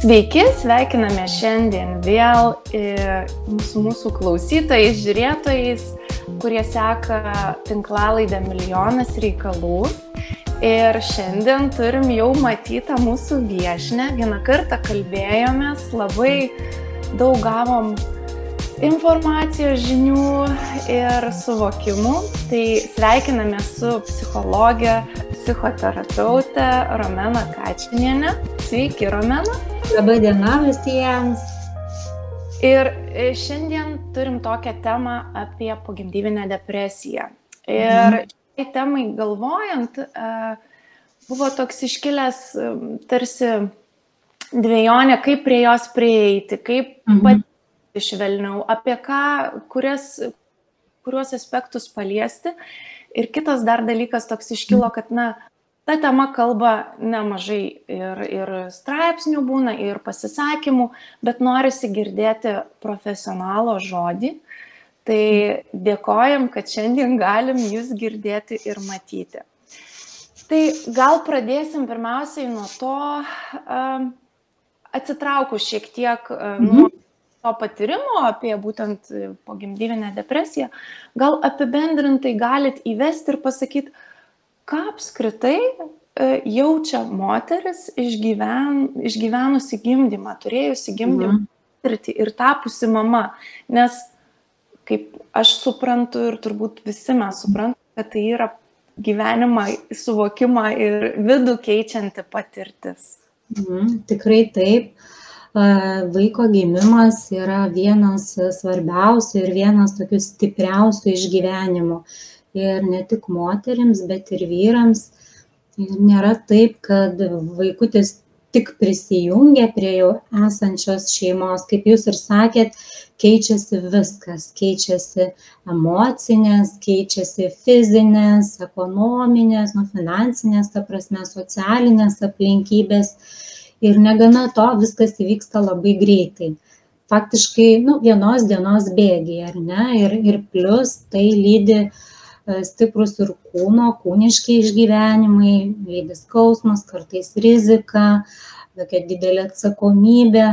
Sveiki, sveikiname šiandien vėl su mūsų klausytojais, žiūrėtojais, kurie seka tinklalaidę Milijonas reikalų. Ir šiandien turim jau matytą mūsų viešnią. Vieną kartą kalbėjomės, labai daug gavom informacijos, žinių ir suvokimų. Tai sveikiname su psichologė, psichoterapeutė Romena Kačinienė. Sveiki, Romena. Labą dieną visiems. Ir šiandien turim tokią temą apie pogimdyvinę depresiją. Ir šiai temai galvojant, buvo toks iškilęs tarsi dvejonė, kaip prie jos prieiti, kaip patirti švelniau, apie ką, kuriuos aspektus paliesti. Ir kitas dar dalykas toks iškilo, kad ta tema kalba nemažai ir straipsnių būna, ir pasisakymų, bet norisi girdėti profesionalo žodį. Tai dėkojam, kad šiandien galim jūs girdėti ir matyti. Tai gal pradėsim pirmiausiai nuo to, atsitraukus šiek tiek nuo to patyrimo apie būtent pogimdyvinę depresiją, gal apibendrintai galit įvesti ir pasakyti, ką apskritai jaučia moteris išgyvenusi gimdymą, turėjusi gimdymą patirtį ir tapusi mama. Nes, kaip aš suprantu ir turbūt visi mes suprantam, kad tai yra gyvenimą, suvokimą ir vidų keičianti patirtis. Tikrai taip. Vaiko gimimas yra vienas svarbiausių ir vienas tokių stipriausių išgyvenimų. Ir ne tik moterims, bet ir vyrams. Ir nėra taip, kad vaikutis tik prisijungia prie jau esančios šeimos. Kaip jūs ir sakėt, keičiasi viskas. Keičiasi emocinės, keičiasi fizinės, ekonominės, finansinės, ta prasme, socialinės aplinkybės. Ir negana to, viskas įvyksta labai greitai. Faktiškai, vienos dienos bėgyje, ar ne? Ir plus tai lydi stiprus ir kūniški išgyvenimai, lydi skausmas, kartais rizika, tokia didelė atsakomybė.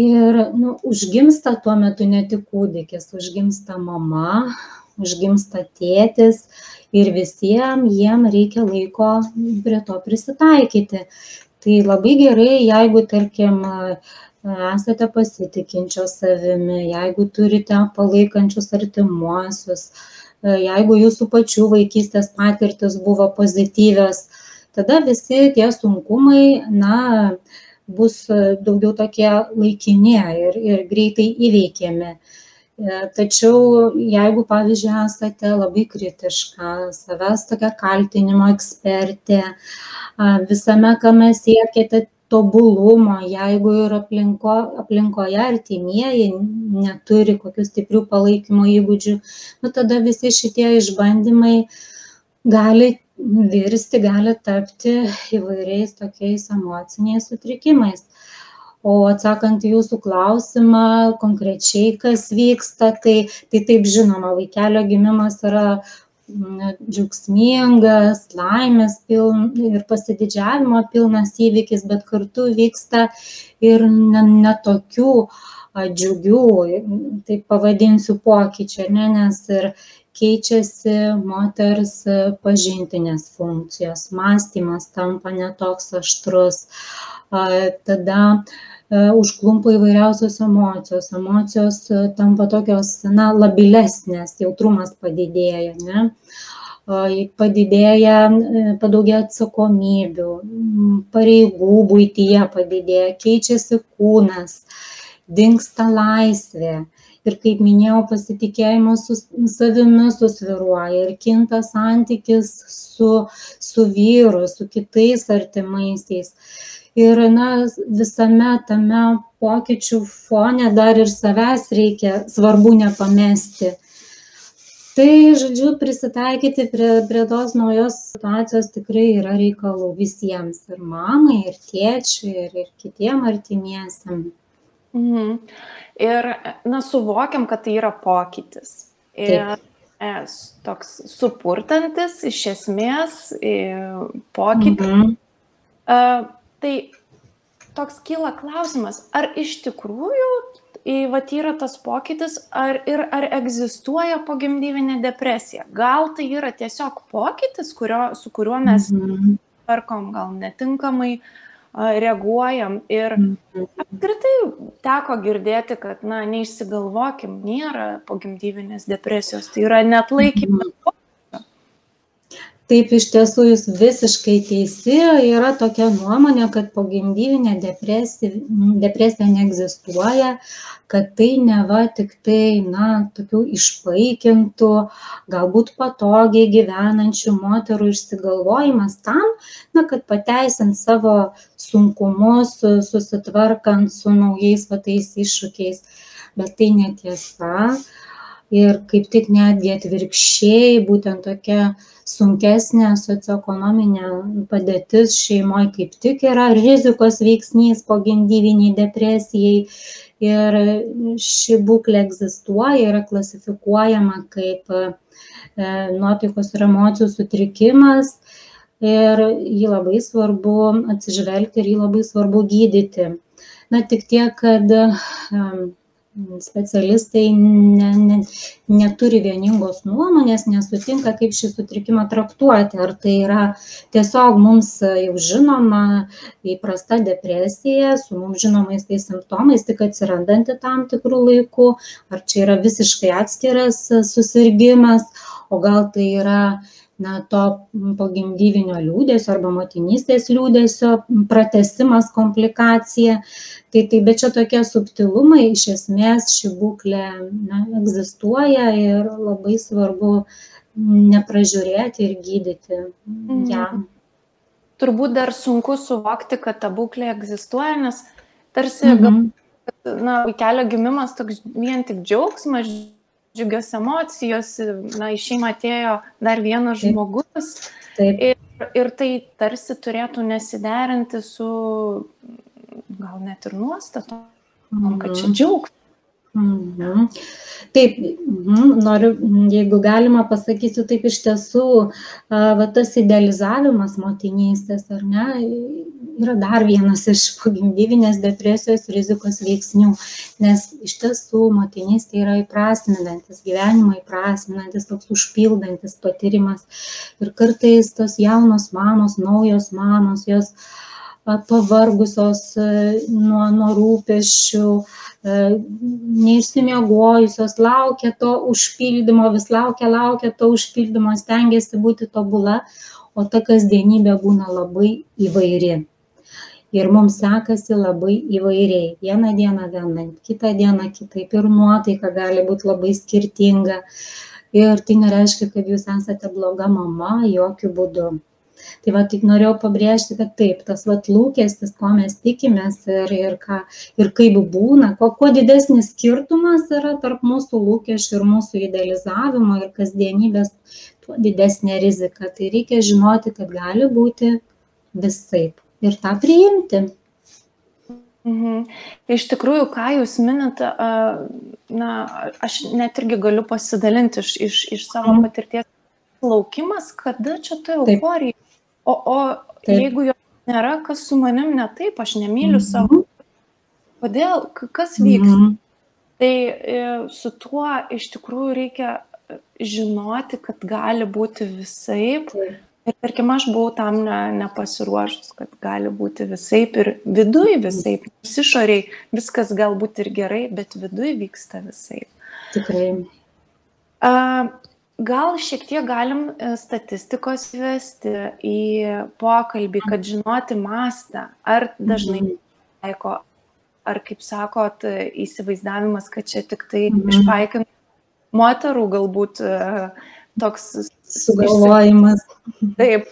Ir užgimsta tuo metu ne tik kūdikis, užgimsta mama, užgimsta tėtis ir visiems jiem reikia laiko prie to prisitaikyti. Tai labai gerai, jeigu, tarkim, esate pasitikinčios savimi, jeigu turite palaikančius artimuosius, jeigu jūsų pačių vaikystės patirtis buvo pozityvios, tada visi tie sunkumai, bus daugiau tokie laikini ir greitai įveikiami. Tačiau jeigu, pavyzdžiui, esate labai kritiška, savęs tokia kaltinimo ekspertė, visame, kame siekėte tobulumo, jeigu ir aplinkoje artimieji neturi kokių stiprių palaikymo įgūdžių, tada visi šitie išbandymai gali virsti, gali tapti įvairiais tokiais emociniais sutrikimais. O atsakant į jūsų klausimą, konkrečiai kas vyksta, tai taip žinoma, vaikelio gimimas yra džiaugsmingas, laimės ir pasididžiavimo pilnas įvykis, bet kartu vyksta ir netokių džiugių, taip pavadinsiu, pokyčių, nes ir keičiasi moters pažintinės funkcijos, mąstymas tampa netoks aštrus, tada užklumpa įvairiausios emocijos tampa tokios, labilesnės, jautrumas padidėja, padaugėja atsakomybių, pareigų buityje padidėja, keičiasi kūnas, dingsta laisvė. Ir kaip minėjau, pasitikėjimas savimi susvyruoja ir kinta santykis su vyru, su kitais artimaisiais. Ir visame tame pokyčių fone dar ir savęs reikia, svarbu nepamesti. Tai, žodžiu, prisitaikyti prie tos naujos situacijos tikrai yra reikalų visiems, ir mamai, ir tėčiui, ir kitiem artimiesiam. Ir, suvokiam, kad tai yra pokytis. Ir toks supurtantis, iš esmės, pokytis. Tai toks kyla klausimas, ar iš tikrųjų vat yra tas pokytis, ar egzistuoja pogimdyvinė depresija. Gal tai yra tiesiog pokytis, su kuriuo mes tvarkom, gal netinkamai reaguojam. Ir apskritai teko girdėti, kad, neišsigalvokim, nėra pogimdyvinės depresijos, tai yra neatlaikymas. Taip, iš tiesų jūs visiškai teisi, yra tokia nuomonė, kad pogimdyvinė depresija neegzistuoja, kad tai neva tik tai, tokių išpaikintų, galbūt patogiai gyvenančių moterų išsigalvojimas tam, kad pateisint savo sunkumus, susitvarkant su naujais tais iššūkiais, bet tai netiesa. Ir kaip tik netgi atvirkščiai, būtent tokia sunkesnė socioekonominė padėtis šeimoje kaip tik yra rizikos veiksnys pogimdyviniai depresijai. Ir ši būklė egzistuoja, yra klasifikuojama kaip nuotaikos ir emocijų sutrikimas. Ir jį labai svarbu atsižvelgti ir jį labai svarbu gydyti. Tik tiek, kad specialistai neturi vieningos nuomonės, nesutinka, kaip šį sutrikimą traktuoti. Ar tai yra tiesiog mums jau žinoma įprasta depresija su mums žinomais tais simptomais, tik atsirandanti tam tikrų laikų, ar čia yra visiškai atskiras susirgimas, o gal tai yra to pogimdyvinio liūdesio arba motinystės liūdesio pratęsimas, komplikacija. Bet čia tokie subtilumai, iš esmės ši būklė egzistuoja ir labai svarbu nepražiūrėti ir gydyti ją. Turbūt dar sunku suvokti, kad ta būklė egzistuoja, nes tarsi vaikelio gimimas toks vien tik džiaugsmas, džiugios emocijos, į šeimą atėjo dar vienas žmogus. Ir tai tarsi turėtų nesiderinti su gal net ir nuostatom, kad čia džiaugsmas. Taip, noriu, jeigu galima pasakysiu, taip iš tiesų, tas idealizavimas motinystės, ar ne, yra dar vienas iš pogimdyvinės depresijos rizikos veiksnių, nes iš tiesų motinystė yra įprasminantis, gyvenimą įprasminantis, toks užpildantis patyrimas. Ir kartais tos jaunos mamos, naujos mamos, jos pavargusios nuo rūpesčių, neišsimiegojusios, laukia to užpildymo, vis laukia to užpildymo, stengiasi būti tobula, o ta kasdienybė būna labai įvairi. Ir mums sekasi labai įvairiai. Vieną dieną vienaip, kitą dieną kitaip, ir nuotaika gali būti labai skirtinga. Ir tai nereiškia, kad jūs esate bloga mama, jokių būdų. Tai tik norėjau pabrėžti, kad taip, tas lūkestis, ko mes tikimės ir kaip būna, kuo didesnis skirtumas yra tarp mūsų lūkesčių ir mūsų idealizavimo ir kasdienybės, tuo didesnė rizika. Tai reikia žinoti, kad gali būti visaip ir tą priimti. Iš tikrųjų, ką jūs minite, aš net irgi galiu pasidalinti iš savo patirties. Laukimas, kada čia ta euforija. O jeigu jo nėra, kas su manim ne taip, aš nemyliu savo. Kodėl? Kas vyksta? Tai su tuo iš tikrųjų reikia žinoti, kad gali būti visaip. Ir tarkim, aš buvau tam nepasiruošus, kad gali būti visaip ir viduj visaip. Išoriai viskas galbūt ir gerai, bet viduj vyksta visaip. Tikrai. Gal šiek tiek galim statistikos įvesti į pokalbį, kad žinoti mastą, ar dažnai taiko, ar kaip sakot, įsivaizdavimas, kad čia tik tai išpaikintų moterų galbūt toks sugalvojimas. Taip.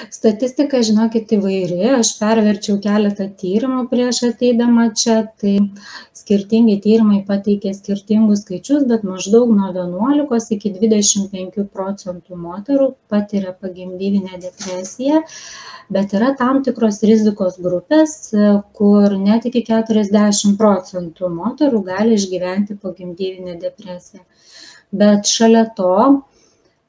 Statistika, žinokit, įvairi. Aš perverčiau keletą tyrimų prieš ateidama čia, tai skirtingi tyrimai pateikė skirtingus skaičius, bet maždaug nuo 11 iki 25% moterų patiria pogimdyvinę depresiją, bet yra tam tikros rizikos grupės, kur net iki 40% moterų gali išgyventi pogimdyvinę depresiją. Bet šalia to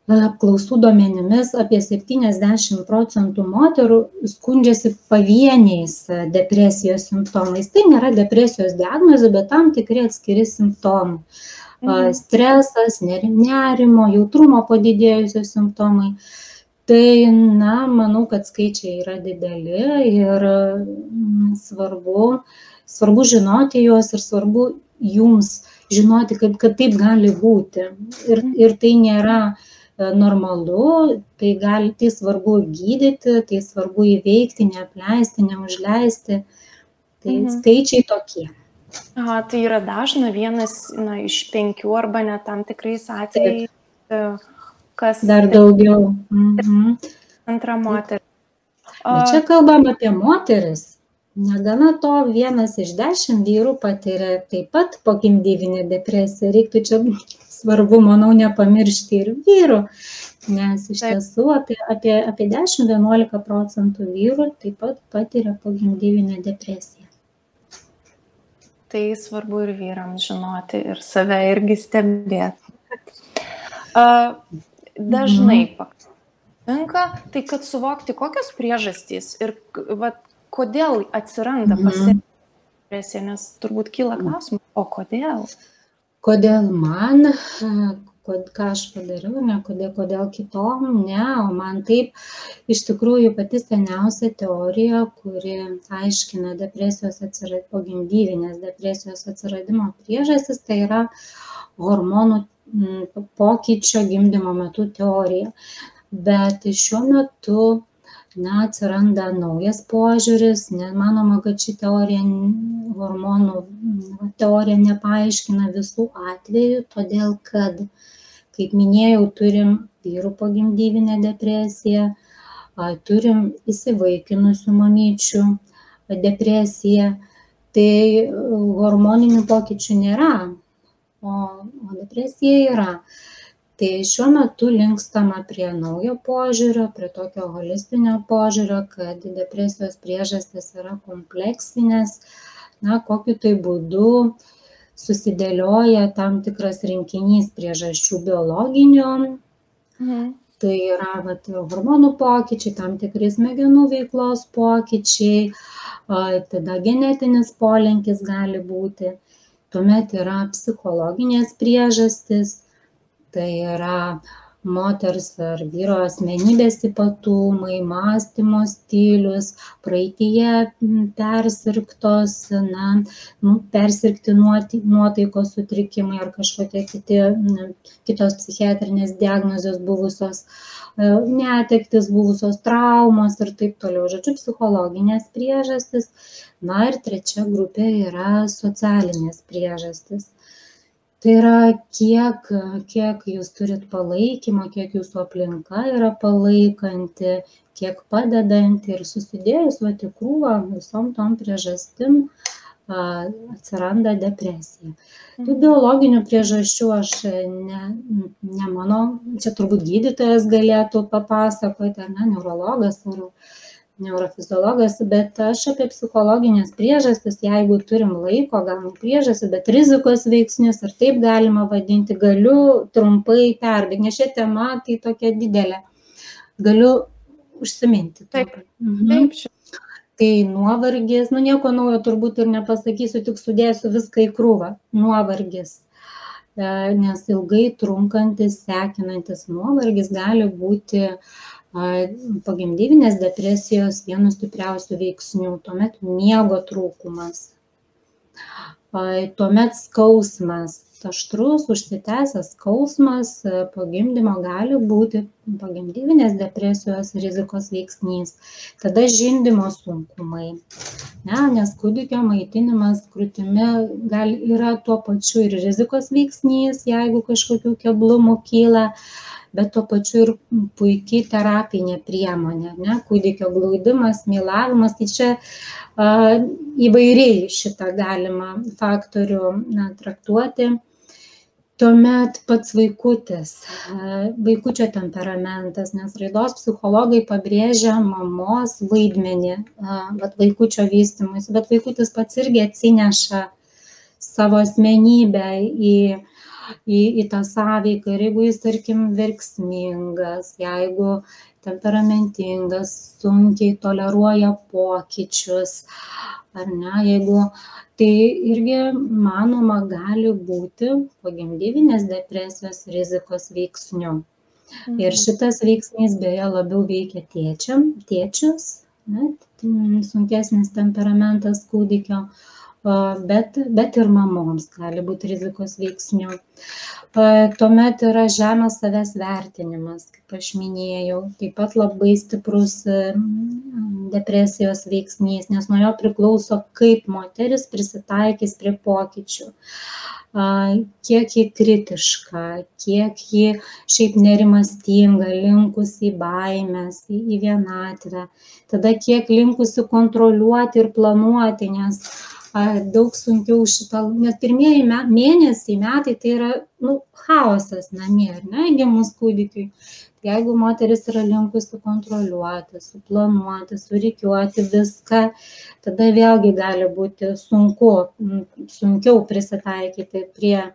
apklausų duomenimis apie 70% moterų skundžiasi pavieniais depresijos simptomais. Tai nėra depresijos diagnozė, bet tam tikri atskiri simptomai. Stresas, nerimo, jautrumo padidėjusios simptomai. Tai, manau, kad skaičiai yra dideli ir svarbu žinoti juos ir svarbu jums žinoti, kad taip gali būti. Ir tai nėra normalu, tai svarbu gydyti, tai svarbu įveikti, neapleisti, neužleisti. Tai skaičiai tokie. Aha, tai yra dažna, vienas iš 5 arba net tam tikrais atvejais, kas... Dar daugiau. Antra moteris. Čia kalbam apie moteris. Negana to, 1 iš 10 vyrų patiria taip pat pogimdyvinę depresiją. Reiktų čia svarbu, manau, nepamiršti ir vyrų, nes iš tiesų apie 10–11% vyrų taip pat patiria pogimdyvinę depresiją. Tai svarbu ir vyrams žinoti ir save irgi stebėti. Dažnai pakanka, tai kad suvokti, kokios priežastys ir kodėl atsiranda depresija, nes turbūt kyla klausimas, o kodėl? Kodėl man, ką aš padariau, ne kodėl kitom, ne, o man taip. Iš tikrųjų, pati seniausia teorija, kuri aiškina pogimdyvinės depresijos atsiradimo priežastis, tai yra hormonų pokyčio gimdymo metu teorija. Bet šiuo metu atsiranda naujas požiūris, manoma, kad ši hormonų teorija nepaaiškina visų atvejų, todėl kad, kaip minėjau, turim vyrų pogimdyvinę depresiją, turim įsivaikinusių mamyčių depresiją, tai hormoninių pokyčių nėra, o depresija yra. Tai šiuo metu linkstama prie naujo požiūrio, prie tokio holistinio požiūrio, kad depresijos priežastys yra kompleksinės, kokiu tai būdu susidėlioja tam tikras rinkinys priežasčių biologinių. Tai yra hormonų pokyčiai, tam tikri smegenų veiklos pokyčiai, tada genetinis polinkis gali būti, tuomet yra psichologinės priežastys. Tai yra moters ar vyro asmenybės ypatumai, mąstymo stilius, praeityje persirgti nuotaikos sutrikimai ar kažkokie kitos psichiatrinės diagnozės buvusios, netektis buvusios, traumos ir taip toliau. Žodžiu, psichologinės priežastys. Ir trečia grupė yra socialinės priežastys. Tai yra, kiek jūs turit palaikymo, kiek jūsų aplinka yra palaikanti, kiek padedanti ir susidėjus į krūvą visom tom priežastim atsiranda depresija. Tų biologinių priežasčių aš nemanau, čia turbūt gydytojas galėtų papasakoti, neurologas ar neurofiziologas, bet aš apie psichologinės priežastis, jeigu turim laiko, gal priežastis, bet rizikos veiksnius, ar taip galima vadinti, galiu trumpai perbėgti, nes šią temą tai tokia didelė. Galiu užsiminti. Taip. Tai nuovargis, nieko naujo turbūt ir nepasakysiu, tik sudėsiu viską į krūvą. Nuovargis, nes ilgai trunkantis, sekinantis nuovargis gali būti pogimdyvinės depresijos vienu stipriausių veiksnių, tuomet miego trūkumas, tuomet skausmas, aštrus, užsitęsęs skausmas po gimdymo gali būti pogimdyvinės depresijos rizikos veiksnys. Tada žindymo sunkumai, nes kūdikio maitinimas krūtimi yra tuo pačiu ir rizikos veiksnys, jeigu kažkokių keblumų kyla, bet tuo pačiu ir puikiai terapinė priemonė, kūdikio glaudimas, mylavimas, tai čia įvairiai šitą galima faktorių traktuoti. Tuomet pats vaikutis, vaikučio temperamentas, nes raidos psichologai pabrėžia mamos vaidmenį, vaikučio vystymus, bet vaikutis pats irgi atsineša savo asmenybę į į tą sąveiką. Ir jeigu jis, tarkim, verksmingas, jeigu temperamentingas, sunkiai toleruoja pokyčius, ar ne, jeigu tai irgi, manoma, gali būti pogimdyvinės depresijos rizikos veiksniu. Ir šitas veiksnys beje labiau veikia tėčius, sunkesnis temperamentas kūdikio, bet ir mamoms gali būti rizikos veiksnių. Tuomet yra žemas savęs vertinimas, kaip aš minėjau, taip pat labai stiprus depresijos veiksnys, nes nuo jo priklauso, kaip moteris prisitaikys prie pokyčių, kiek ji kritiška, kiek ji šiaip nerimastinga, linkusi į baimės, į vienatvę, tada kiek linkusi kontroliuoti ir planuoti, nes daug sunkiau nes pirmieji mėnesiai, metai tai yra chaosas namie, ar ne, gimus kūdikiui. Jeigu moteris yra linkusi kontroliuoti, suplanuoti, surikiuoti viską, tada vėlgi gali būti sunkiau prisitaikyti prie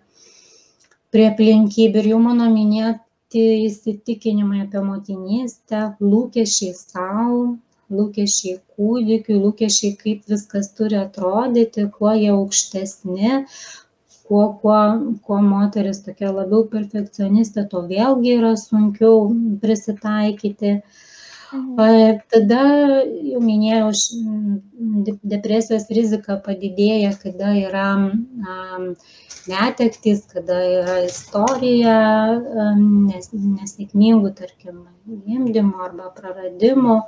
aplinkybių. Ir jau mano minėti įsitikinimai apie motinystę, lūkesčiai savo, lūkesčiai kūdikiui, lūkesčiai, kaip viskas turi atrodyti, kuo jie aukštesni, kuo moteris tokia labiau perfekcionistė, to vėlgi yra sunkiau prisitaikyti. Tada, jau minėjau, depresijos rizika padidėja, kada yra netektys, kada yra istorija nesėkmingų, tarkim, gimdymo arba praradimų.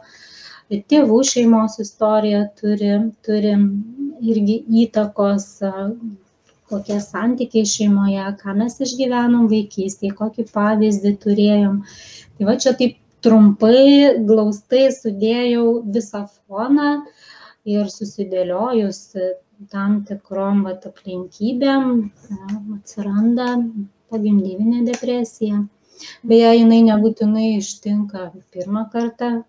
Tėvų šeimos istorija turi irgi įtakos, kokie santykiai šeimoje, ką mes išgyvenom vaikystėje, kokį pavyzdį turėjom. Tai va čia taip trumpai, glaustai sudėjau visą foną ir susidėliojus tam tikrom aplinkybėm atsiranda pogimdyvinė depresija. Beje, jinai nebūtinai ištinka pirmą kartą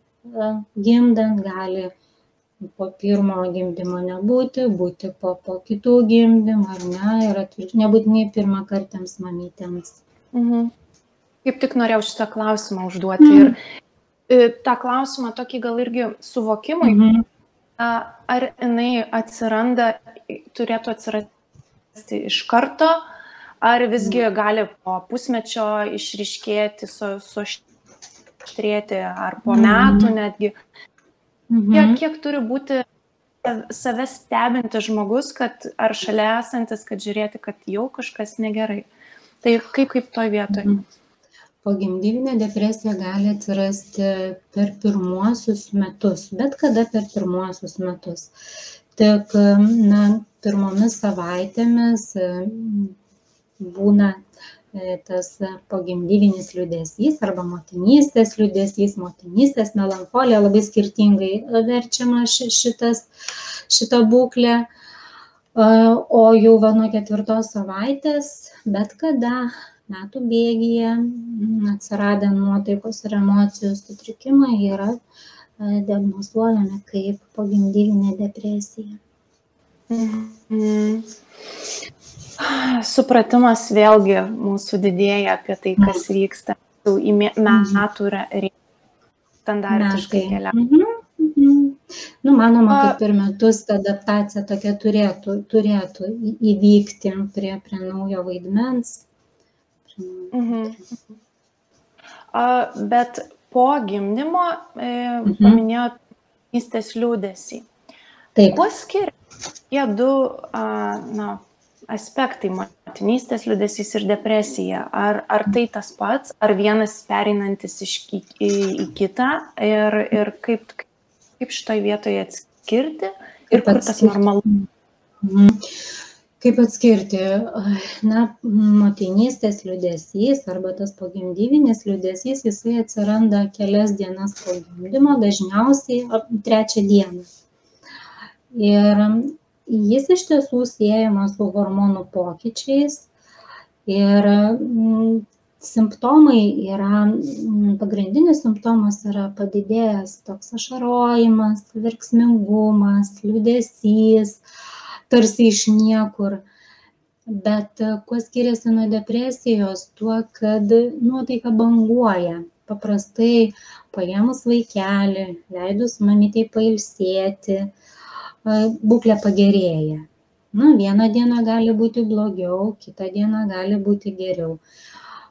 gimdant, gali po pirmo gimdymo nebūti, būti po kitų gimdymų, ar ne, ir nebūtinai pirmakartėms mamytėms. Kaip tik norėjau šitą klausimą užduoti. Ir tą klausimą tokį gal irgi suvokimui, ar jinai turėtų atsirasti iš karto, ar visgi gali po pusmečio išryškėti, suaštrėti, ar po metų netgi. Kiek turi būti save stebinti žmogus, ar šalia esantis, kad žiūrėti, kad jau kažkas negerai. Tai kaip toj vietoj? Pogimdyvinė depresija gali atsirasti per pirmuosius metus, bet kada per pirmuosius metus. Tik pirmomis savaitėmis būna tas pogimdyvinis liūdesys arba motinystės liūdesys, motinystės melancholija, labai skirtingai verčiama šita būklė. O jau nuo 4 savaitės, bet kada metų bėgyje atsiradę nuotaikos ir emocijų sutrikimai yra diagnozuojami kaip pogimdyvinė depresija. Supratimas vėlgi mūsų didėja apie tai, kas vyksta. Į metų standartiškai keliauja. Manoma, kad per metus ta adaptacija tokia turėtų įvykti prie naujo vaidmens. Bet po gimdymo paminėjot motinystės liūdesį. Kuo skiriasi tie du aspektai, motinystės liūdesys ir depresija? Ar tai tas pats, ar vienas pereinantis į kitą ir kaip šitoj vietoje atskirti ir kur tas normalu? Kaip atskirti? Motinystės liūdesys arba tas pogimdyvinis liūdesys, jisai atsiranda kelias dienas po gimdymo, dažniausiai 3 dieną. Ir jis iš tiesų siejamas su hormonų pokyčiais ir simptomai yra, pagrindinis simptomas yra padidėjęs toks ašarojimas, verksmingumas, liūdesys, tarsi iš niekur. Bet kuo skiriasi nuo depresijos? Tuo, kad nuotaika banguoja. Paprastai paėmus vaikelį, leidus mamytei pailsėti, būklė pagerėja. Vieną dieną gali būti blogiau, kitą dieną gali būti geriau.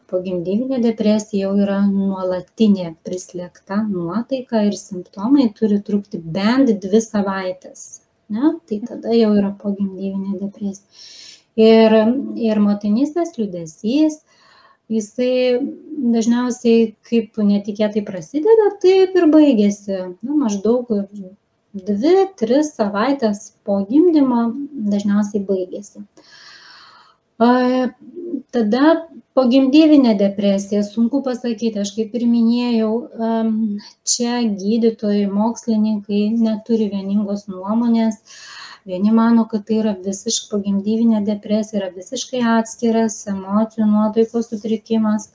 Pogimdyvinė depresija jau yra nuolatinė prislėgta nuotaika ir simptomai turi trukti bent 2 savaitės. Ne? Tai tada jau yra pogimdyvinė depresija. Ir motinystės liūdesys, jisai dažniausiai kaip netikėtai prasideda, taip ir baigėsi. Maždaug 2-3 savaitės po gimdymo dažniausiai baigėsi. Tada pogimdyvinė depresija, sunku pasakyti, aš kaip ir minėjau, čia gydytojai, mokslininkai neturi vieningos nuomonės. Vieni mano, kad tai yra visiškai pogimdyvinė depresija, yra visiškai atskiras emocijų nuotaikos sutrikimas,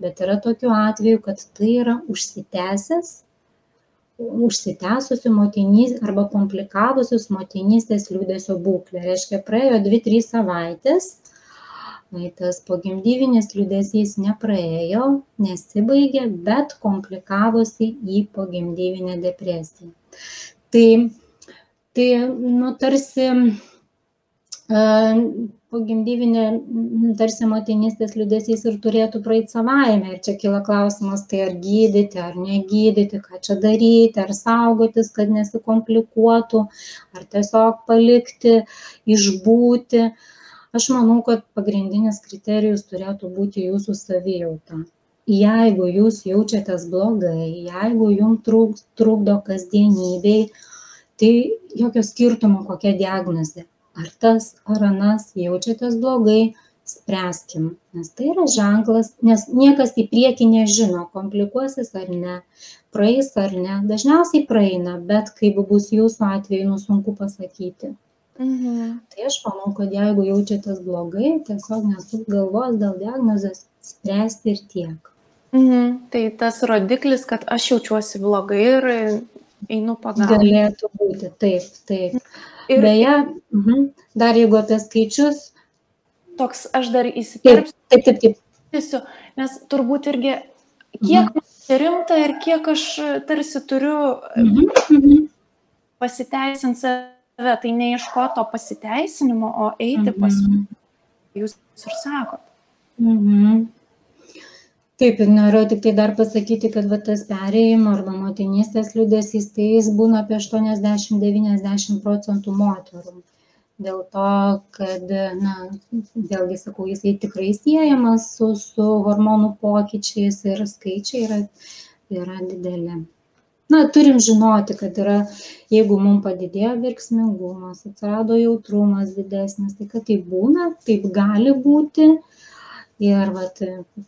bet yra tokių atvejų, kad tai yra užsitęsusi motinystės arba komplikavusius motinystės liūdesio būklę. Reiškia, praėjo 2-3 savaitės, tas pogimdyvinis liūdesys nepraėjo, nesibaigė, bet komplikavosi į pogimdyvinę depresiją. Tai tarsi pogimdyvinė, tarsi motinystės liūdesys ir turėtų praeiti savaime. Ir čia kyla klausimas, tai ar gydyti, ar negydyti, ką čia daryti, ar saugotis, kad nesikomplikuotų, ar tiesiog palikti, išbūti. Aš manau, kad pagrindinis kriterijus turėtų būti jūsų savijauta. Jeigu jūs jaučiatės blogai, jeigu jums trukdo kasdienybei, tai jokio skirtumo kokia diagnozė. Ar tas, ar anas jaučiatės blogai, spręskim. Nes tai yra ženklas, nes niekas į priekį nežino, komplikuosis ar ne, praeis ar ne. Dažniausiai praeina, bet kaip bus jūsų atveju, sunku pasakyti. Tai aš manau, kad jeigu jaučiatės blogai, tiesiog nesuk galvos dėl diagnozės, spręsti ir tiek. Tai tas rodiklis, kad aš jaučiuosi blogai ir einu pagalbą. Galėtų būti, taip. Ir beje, dar jeigu apie skaičius. Toks, aš dar įsiterpsiu. Taip. Nes turbūt irgi, kiek man rimta ir kiek aš tarsi turiu pasiteisinti save, tai neieško to pasiteisinimo, o eiti pas jūs ir sakot. Taip, ir noriu tik tai dar pasakyti, kad tas perėjimo arba motinystės liūdesys, tai jis būna apie 80-90% moterų. Dėl to, kad, vėlgi sakau, jisai tikrai siejamas su hormonų pokyčiais ir skaičiai yra dideli. Turim žinoti, kad jeigu mums padidėjo verksmingumas, atsirado jautrumas didesnis, tai kad tai būna, taip gali būti. Ir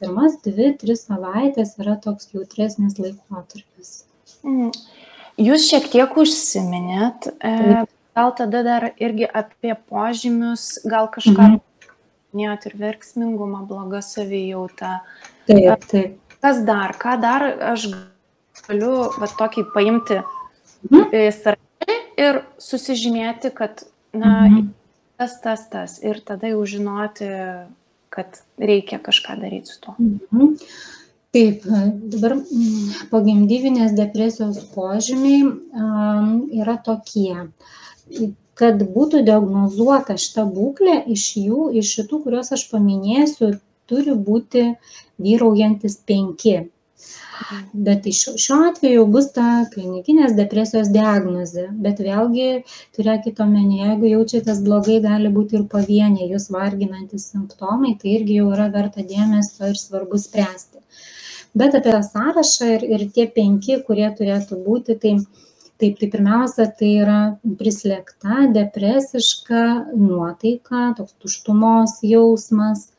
pirmas 2-3 savaitės yra toks jautresnis laikotarpis. Jūs šiek tiek užsiminėt, gal tada dar irgi apie požymius, gal kažką minėjot ir verksmingumą, blogą savijautą. Taip. Kas dar? Ką dar aš galiu tokį paimti sąrašą ir susižymėti, kad tas ir tada jau žinoti, kad reikia kažką daryti su to. Taip, dabar pogimdyvinės depresijos požymiai yra tokie, kad būtų diagnozuota šita būklė, iš šitų, kuriuos aš paminėsiu, turi būti vyraujantis 5. Bet šiuo atveju bus ta klinikinės depresijos diagnozė, bet vėlgi turėkite omenyje, jeigu jaučiatės blogai, gali būti ir pavieniai jūs varginantis simptomai, tai irgi jau yra verta dėmesio ir svarbu spręsti. Bet apie tą sąrašą ir tie 5, kurie turėtų būti, tai pirmiausia, tai yra prislėgta, depresiška nuotaika, toks tuštumos jausmas,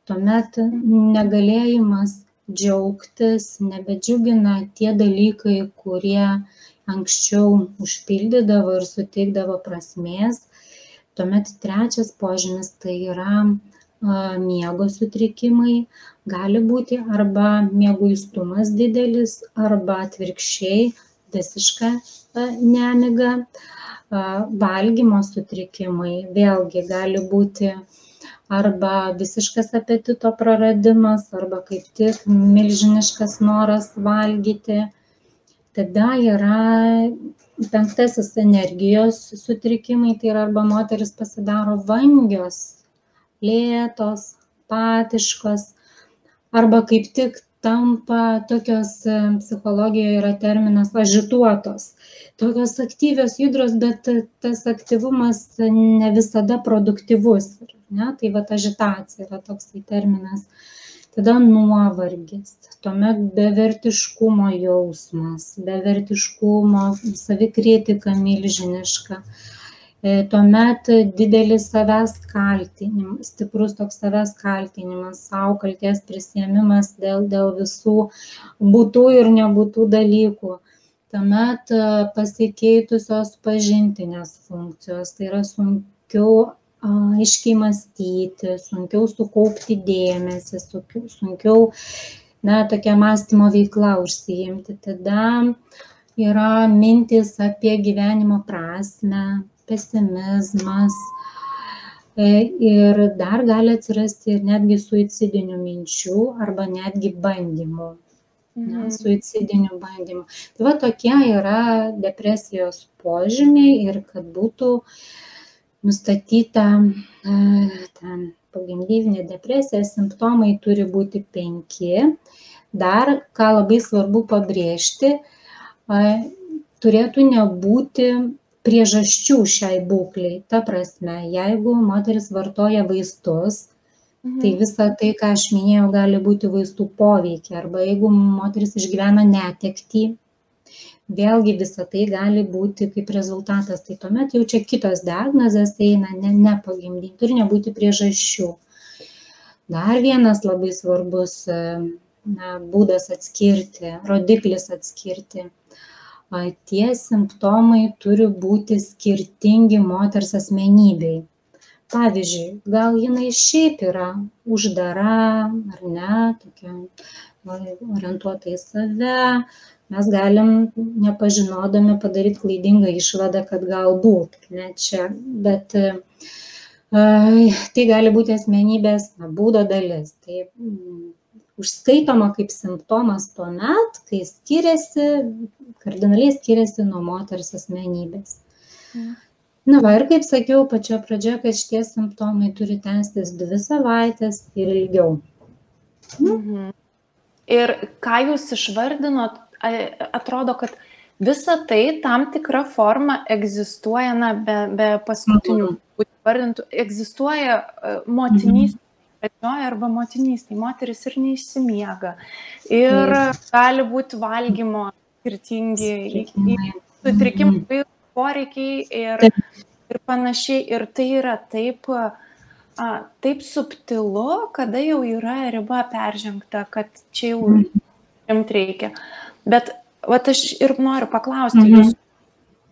tuomet negalėjimas džiaugtis, nebedžiugina tie dalykai, kurie anksčiau užpildydavo ir suteikdavo prasmės. Tuomet 3 požymis tai yra miego sutrikimai, gali būti arba mieguistumas didelis, arba atvirkščiai visiška nemiga, valgymo sutrikimai, vėlgi gali būti arba visiškas apetito praradimas, arba kaip tik milžiniškas noras valgyti. Tada yra 5. energijos sutrikimai, tai yra arba moteris pasidaro vangios, lėtos, apatiškos, arba kaip tik tampa tokios, psichologijoje yra terminas ažituotos, tokios aktyvios, judrios, bet tas aktyvumas ne visada produktyvus, ne? Tai vat ažitacija yra toksai terminas. Tada nuovargis, tuomet bevertiškumo jausmas, bevertiškumo, savikritika milžiniška. Tuomet didelis savęs kaltinimas, stiprus toks savęs kaltinimas, sau kaltės prisiėmimas dėl visų būtų ir nebūtų dalykų. Tuomet pasikeitusios pažintinės funkcijos, tai yra sunkiau aiškiai mąstyti, sunkiau sukaupti dėmesį, sunkiau tokia mąstymo veikla užsiimti. Tada yra mintys apie gyvenimo prasmę, pesimizmas ir dar gali atsirasti ir netgi suicidinių minčių arba netgi bandymų, suicidinių bandymų. Tai va tokie yra depresijos požymiai ir kad būtų nustatyta pogimdyvinė depresija, simptomai turi būti 5. Dar, ką labai svarbu pabrėžti, turėtų nebūti priežasčių šiai būklei. Ta prasme, jeigu moteris vartoja vaistus, tai visa tai, ką aš minėjau, gali būti vaistų poveikiai. Arba jeigu moteris išgyvena netektį, vėlgi visa tai gali būti kaip rezultatas. Tai tuomet jau čia kitos diagnozės eina, ne pogimdyti, turi nebūti priežasčių. Dar vienas labai svarbus būdas atskirti, rodiklis atskirti. Tie simptomai turi būti skirtingi moters asmenybei. Pavyzdžiui, gal jinai šiaip yra uždara, ar ne, tokia orientuota į save, mes galim nepažinodami padaryti klaidingą išvadą, kad galbūt, ne čia, bet tai gali būti asmenybės būdo dalis. Tai užskaitoma kaip simptomas tuomet, kai kardinaliai skiriasi nuo moters asmenybės. Na va, ir kaip sakiau pačioje pradžioje, kad šitie simptomai turi tęstis 2 savaites ir ilgiau. Ir ką jūs išvardinot, atrodo, kad visa tai tam tikra forma egzistuoja, be paskutinių vardintų, egzistuoja motinystė. Arba motinystė, moteris ir neišsimiega. Ir gali būti valgymo skirtingi sutrikimai, poreikiai ir panašiai. Ir tai yra taip subtilu, kada jau yra riba peržengta, kad čia jau rimti reikia. Bet vat aš ir noriu paklausti jūs,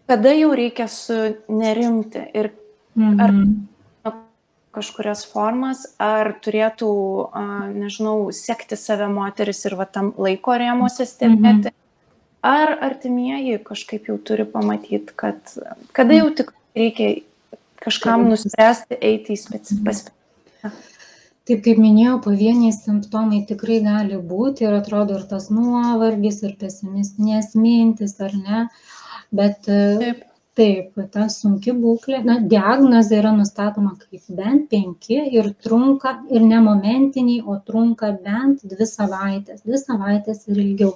kada jau reikia sunerimti ir ar kažkurias formas, ar turėtų, nežinau, sekti save moteris ir tam laiko rėmuose stebėti, ar artimieji kažkaip jau turi pamatyti, kad kada jau tik reikia kažkam nuspręsti eiti į specifiką. Taip, kaip minėjau, pavieniai simptomai tikrai gali būti ir atrodo ir tas nuovargis, ir pesimistinės mintis, ar ne, bet taip, ta sunki būklė, diagnozė yra nustatoma kaip bent 5 ir trunka, ir ne momentiniai, o trunka bent 2 savaitės, 2 savaitės ir ilgiau.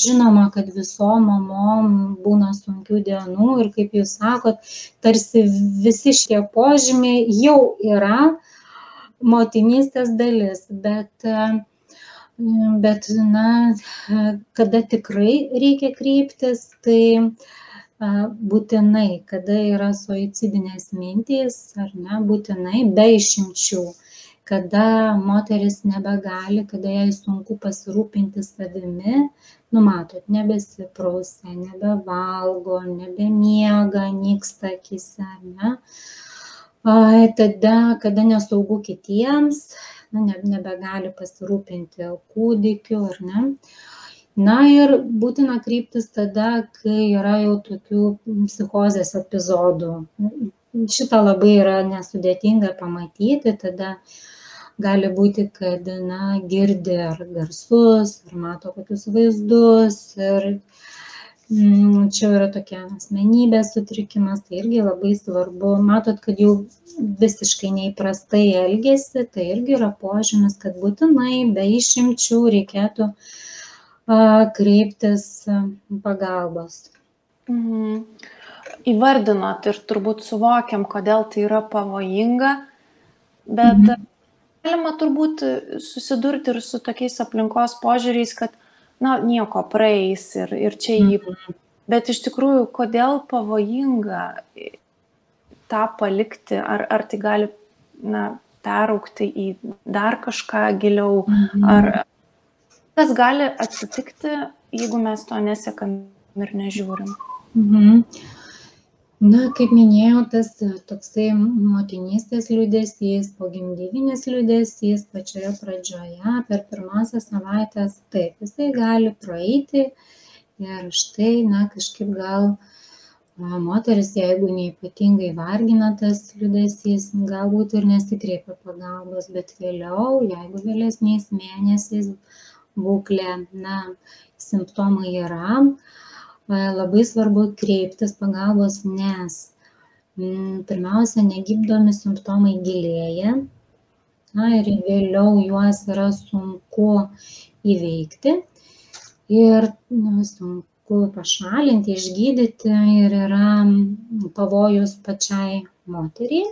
Žinoma, kad visom mamom būna sunkių dienų ir kaip jūs sakot, tarsi visi šitie požymiai jau yra motinystės dalis, bet kada tikrai reikia kreiptis, tai būtinai, kada yra suicidinės mintys, ar ne, būtinai, be išimčių, kada moteris nebegali, kada jai sunku pasirūpinti savimi, matot, nebesiprausia, nebevalgo, nebemiega, nyksta akyse, ne? Tada, kada nesaugu kitiems, nebegali pasirūpinti kūdikiu, ar ne? Ir būtina kreiptis tada, kai yra jau tokių psichozės epizodų. šitą labai yra nesudėtinga pamatyti, tada gali būti, kad, girdi ar garsus, ar mato kokius vaizdus ir čia yra tokia asmenybės sutrikimas, tai irgi labai svarbu. Matot, kad jau visiškai neįprastai elgesi, tai irgi yra požymis, kad būtinai be išimčių reikėtų kreiptis pagalbos. Įvardinot ir turbūt suvokiam, kodėl tai yra pavojinga, bet galima turbūt susidurti ir su tokiais aplinkos požiūriais, kad nieko praeis ir čia jį. Bet iš tikrųjų, kodėl pavojinga tą palikti, ar tai gali peraugti į dar kažką giliau, ar kas gali atsitikti, jeigu mes to nesekam ir nežiūrim. Kaip minėjau, tas toksai motinystės liūdesys, pogimdyvinis liūdesys pačioje pradžioje, per pirmąsias savaitės, taip, jisai gali praeiti ir štai, kažkaip gal moteris, jeigu neypatingai vargina tas liūdesys, galbūt ir nesikreipia pagalbos, bet vėliau, jeigu vėlesniais mėnesiais būklė, simptomai yra, labai svarbu kreiptis pagalbos, nes pirmiausia, negyddomi simptomai gilėja ir vėliau juos yra sunku įveikti ir sunku pašalinti, išgydyti ir yra pavojus pačiai moteriai.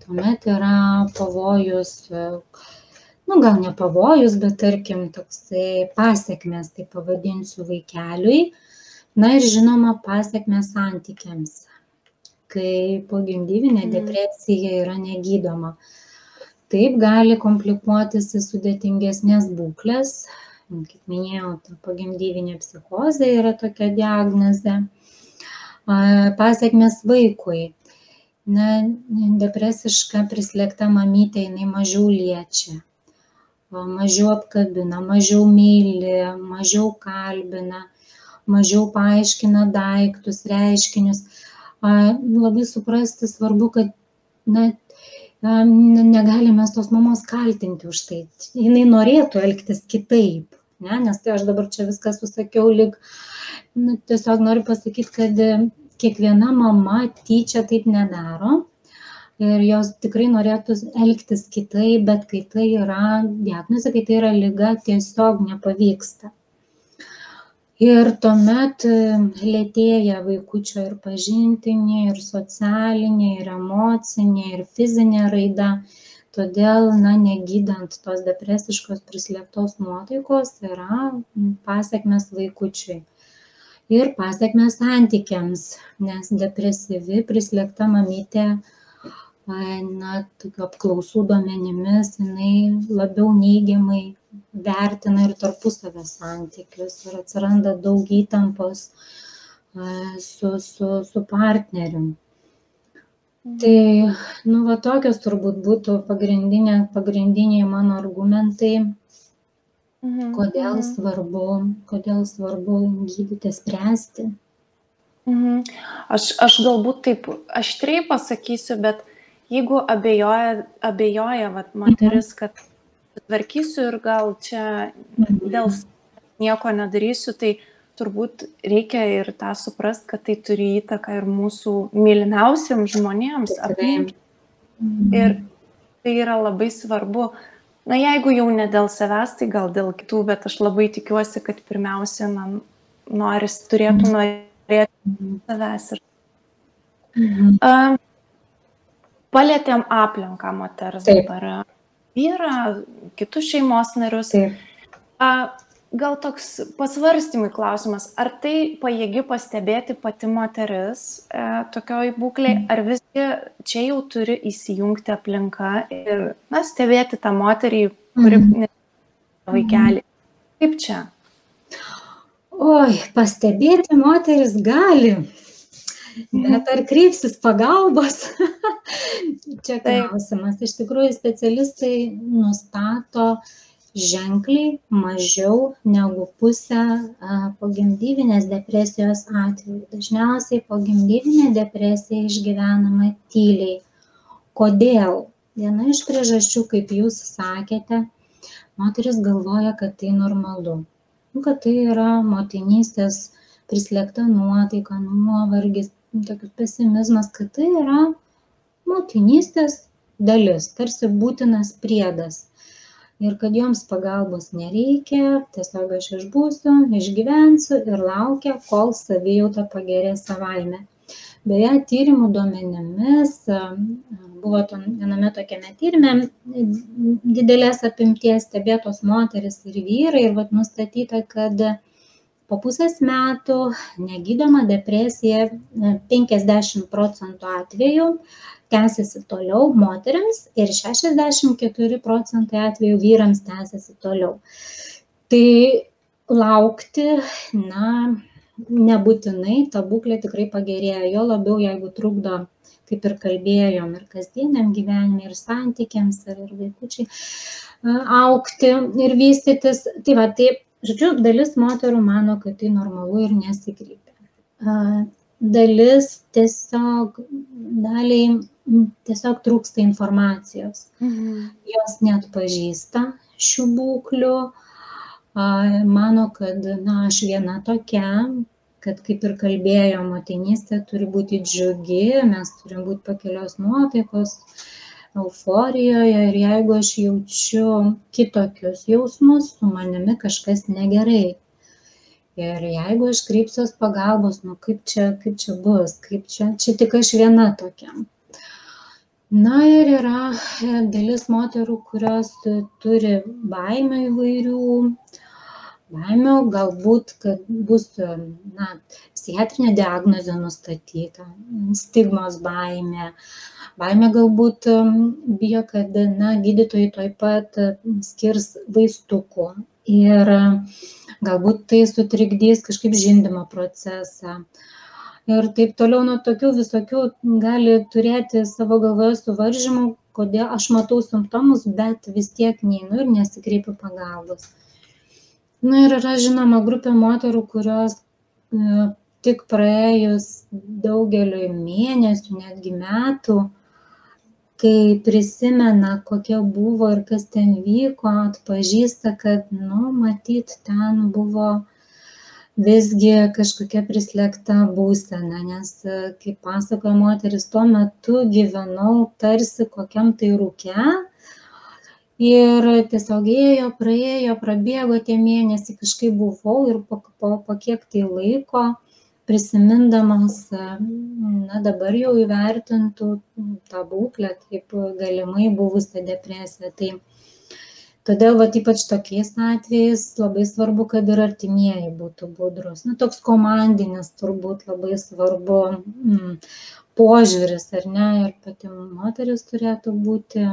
Tuomet yra pavojus, gal ne pavojus, bet tarkim toksai pasekmės, tai pavadinsiu, vaikeliui. Ir žinoma, pasekmės santykiams, kai pogimdyvinė depresija yra negydoma. Taip gali komplikuotis į sudėtingesnės būklės. Kaip minėjau, pogimdyvinė psichozė yra tokia diagnozė. Pasekmės vaikui. Depresiška prislėgta mamytė, jinai mažiau liečia, mažiau apkabina, mažiau myli, mažiau kalbina, mažiau paaiškina daiktus, reiškinius. Labai suprasti svarbu, kad negalime tos mamos kaltinti už tai. Jinai norėtų elgtis kitaip, nes tai aš dabar čia viską susakiau, lyg tiesiog noriu pasakyti, kad kiekviena mama tyčia taip nedaro ir jos tikrai norėtų elgtis kitaip, bet kai tai yra diagnozė, kai tai yra liga, tiesiog nepavyksta. Ir tuomet lėtėja vaikučio ir pažintinė, ir socialinė, ir emocinė, ir fizinė raida. Todėl, negydant tos depresiškos prislėgtos nuotaikos yra pasekmės vaikučiui. Ir pasekmės santykiams, nes depresyvi prislėgta mamytė, tokių apklausų duomenimis, jinai labiau neigiamai vertina ir tarpusavio santykius ir atsiranda daug įtampos su partneriu. Tai, tokios turbūt būtų pagrindiniai mano argumentai, kodėl svarbu gydyti, spręsti. Aš galbūt taip aštriai pasakysiu, bet jeigu abejoja moteris, kad tvarkysiu ir gal čia dėl nieko nedarysiu, tai turbūt reikia ir tą suprast, kad tai turi įtaką ir mūsų mylimiausiams žmonėms aplink. Ir tai yra labai svarbu. Jeigu jau ne dėl savęs, tai gal dėl kitų, bet aš labai tikiuosi, kad pirmiausia, turėtų norėti savęs. Palėtėm aplinką moters dabar. Vyrą, kitus šeimos narius. Gal toks pasvarstymui klausimas, ar tai pajėgi pastebėti pati moteris tokioj būklėj, ar visgi čia jau turi įsijungti aplinka ir stebėti tą moterį, kuri vaikelį. Kaip čia? Pastebėti moteris gali, bet ar kreipsis pagalbos? Čia klausimas. Iš tikrųjų, specialistai nustato ženkliai mažiau negu pusę pogimdyvinės depresijos atveju. Dažniausiai pogimdyvinė depresija išgyvenama tyliai. Kodėl? Viena iš priežasčių, kaip jūs sakėte, moteris galvoja, kad tai normalu. Kad tai yra motinystės prislėgta nuotaika, nuovargis, tokius pesimizmas, kad tai yra motinystės dalis, tarsi būtinas priedas. Ir kad joms pagalbos nereikia, tiesiog aš išbūsiu, išgyvensiu ir laukia, kol savijauta pagerės savaime. Beje, tyrimų duomenimis, buvo viename tokiame tyrime didelės apimties stebėtos moteris ir vyrai ir nustatyta, kad po pusės metų negydoma depresija 50% atvejų tęsiasi toliau moteriams ir 64% atvejų vyrams tęsiasi toliau. Tai laukti, nebūtinai ta būklė tikrai pagerėja, jo labiau jeigu trukdo, kaip ir kalbėjom, ir kasdieniam gyvenime, ir santykiams, ir vaikučiai augti ir vystytis. Tai, žodžiu, dalis moterų mano, kad tai normalu ir nesikreipia. Dalis daliai tiesiog trūksta informacijos. Jos neatpažįsta šių būklių, mano, kad aš viena tokia, kad kaip ir kalbėjo, motinystė turi būti džiugi, mes turim būti pakelios nuotaikos, euforijoje ir jeigu aš jaučiu kitokius jausmus, su manimi kažkas negerai. Ir jeigu aš kreipsiuos pagalbos, kaip čia bus, čia tik aš viena tokia. Ir yra dalis moterų, kurios turi baimių įvairių, baimių galbūt, kad bus psichiatrinė diagnozė nustatyta, stigmos baimė. Baimė galbūt bijo, kad gydytojai tuoj pat skirs vaistukų ir galbūt tai sutrikdys kažkaip žindymo procesą. Ir taip toliau, tokių visokių gali turėti savo galvoje suvaržymų, kodėl aš matau simptomus, bet vis tiek neinu ir nesikreipiu pagalbos. Ir yra žinoma grupė moterų, kurios tik praėjus daugeliui mėnesių, netgi metų, kai prisimena, kokia buvo ir kas ten vyko, atpažįsta, kad, matyt, ten buvo visgi kažkokia prislėgta būsena, nes, kaip pasakoja moteris, tuo metu gyvenau tarsi kokiam tai rūke ir tiesiog ėjo, praėjo, prabėgo tie mėnesiai, kažkaip buvau ir po kiek tai laiko prisimindamas, dabar jau įvertintų tą būklę kaip galimai buvusią depresiją. Todėl ypač tokiais atvejais labai svarbu, kad ir artimieji būtų budrus. Toks komandinis turbūt labai svarbu požiūris, ar ne? Ir pati moteris turėtų būti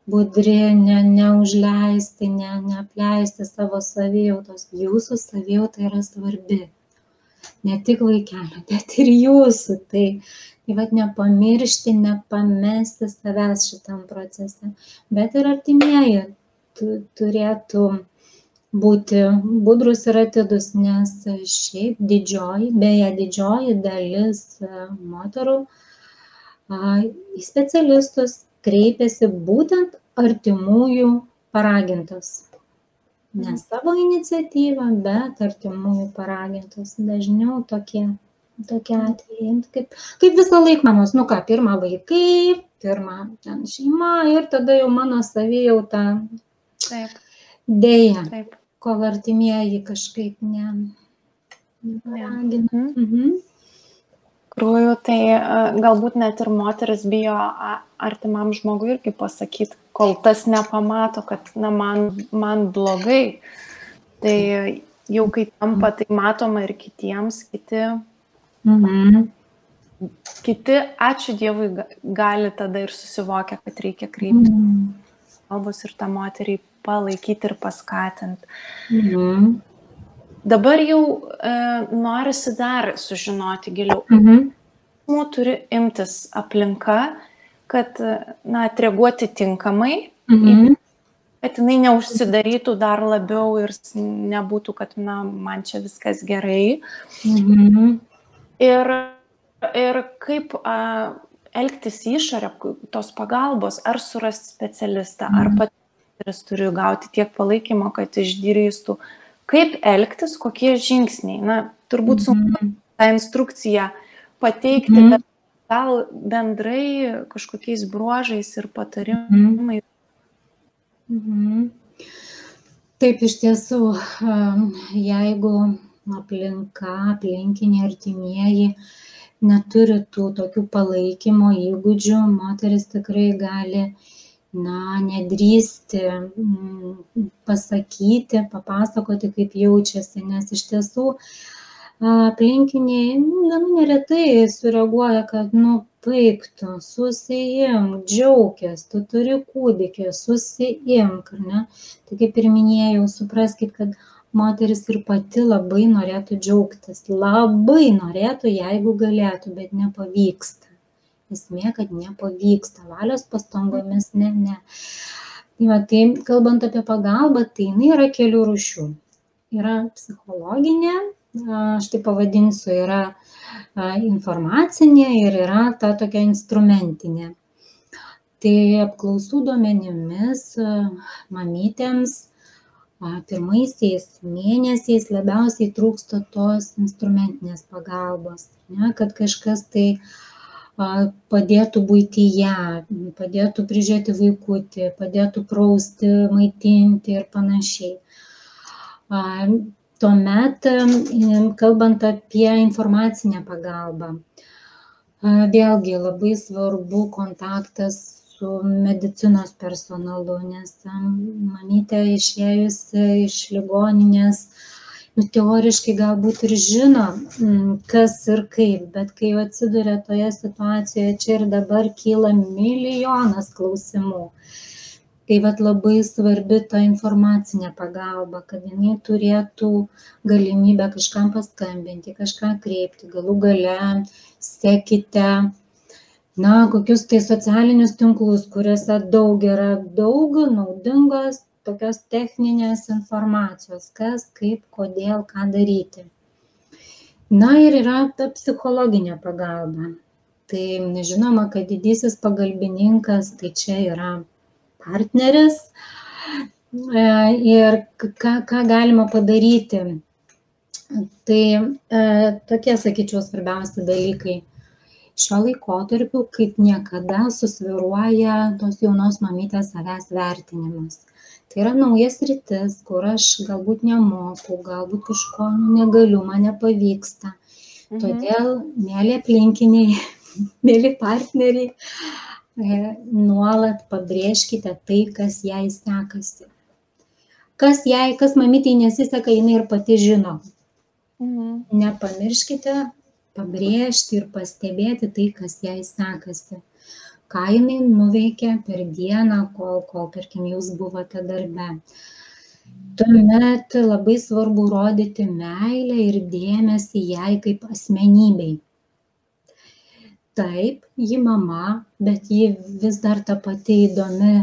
budri, neužleisti, neapleisti savo savijautos. Jūsų savijauta yra svarbi. Ne tik vaikelio, bet ir jūsų. Tai nepamiršti, nepamesti savęs šitam procese. Bet ir artimieji turėtų būti budrus ir atidus, nes šiaip didžioji dalis moterų į specialistus kreipiasi būtent artimųjų paragintos. Ne savo iniciatyvą, bet artimųjų paragintos. Dažniau tokie atvejai. Kaip visą laiką mamos, pirma vaikai, pirma šeima ir tada jau mano savijauta. Taip. Deja, kol artimieji kažkaip neparagina. Krūjų, tai galbūt net ir moteris bijo artimam žmogui irgi pasakyti, kol tas nepamato, kad man blogai. Tai jau kai tampa, tai matoma ir kitiems, kiti, ačiū Dievui, gali tada ir susivokia, kad reikia kreipti pagalbos ir tą moterį palaikyti ir paskatinti. Dabar jau norisi dar sužinoti giliau. Turi imtis aplinka, kad atreaguoti tinkamai kad jinai neužsidarytų dar labiau ir nebūtų, kad, na, man čia viskas gerai. Ir kaip elgtis išorę tos pagalbos, ar surasti specialistą, ar pats turi gauti tiek palaikymo, kad išdrįstų. Kaip elgtis, kokie žingsniai? Na, turbūt sunku tą instrukciją pateikti, bet gal bendrai kažkokiais bruožais ir patarimais. Taip, iš tiesų, jeigu aplinka, aplinkiniai artimieji neturi tų tokių palaikymo įgūdžių, moteris tikrai gali, nedrįsti pasakyti, papasakoti, kaip jaučiasi, nes iš tiesų aplinkiniai neretai sureaguoja, kad, baik tu, susiimk, džiaukis, tu turi kūdikį, susiimk, ar ne? Tai kaip ir minėjau, supraskit, kad moteris ir pati labai norėtų džiaugtis, labai norėtų, jeigu galėtų, bet nepavyksta. Esmė, kad nepavyksta, valios pastangomis ne. Tai kalbant apie pagalbą, tai jinai yra kelių rūšių. Yra psichologinė, aš tai pavadinsiu, yra informacinė ir yra ta tokia instrumentinė. Tai apklausų duomenimis mamytėms pirmaisiais mėnesiais labiausiai trūksta tos instrumentinės pagalbos, kad kažkas tai padėtų buityje, padėtų prižiūrėti vaikutį, padėtų prausti, maitinti ir panašiai. Tuomet, kalbant apie informacinę pagalbą, vėlgi labai svarbu kontaktas su medicinos personalu, nes mamytė išėjusi iš ligoninės, teoriškai galbūt ir žino, kas ir kaip, bet kai jau atsiduria toje situacijoje, čia ir dabar kyla milijonas klausimų. Tai labai svarbi ta informacinė pagalba, kad jinai turėtų galimybę kažkam paskambinti, kažką kreipti, galų gale sekite, kokius tai socialinius tinklus, kuriuose yra daug naudingos tokios techninės informacijos, kas, kaip, kodėl, ką daryti. Ir yra ta psichologinė pagalba. Tai žinoma, kad didysis pagalbininkas, tai čia yra partneris ir ką galima padaryti. Tai tokie, sakyčiau, svarbiausi dalykai. Šiuo laikotarpiu kaip niekada susvyruoja tos jaunos mamytės savęs vertinimas. Tai yra naujas sritis, kur aš galbūt nemoku, galbūt kažko negaliu, man nepavyksta. Todėl, mėly aplinkiniai, mėly partneriai, nuolat pabrėžkite tai, kas jai sekasi. Kas mamytei nesiseka, jinai ir pati žino. Nepamirškite pabrėžti ir pastebėti tai, kas jai sekasi. Ką jinai nuveikė per dieną, kol tarkim, jūs buvote darbe. Tuomet labai svarbu rodyti meilę ir dėmesį jai kaip asmenybei. Taip, ji mama, bet ji vis dar ta pati įdomi,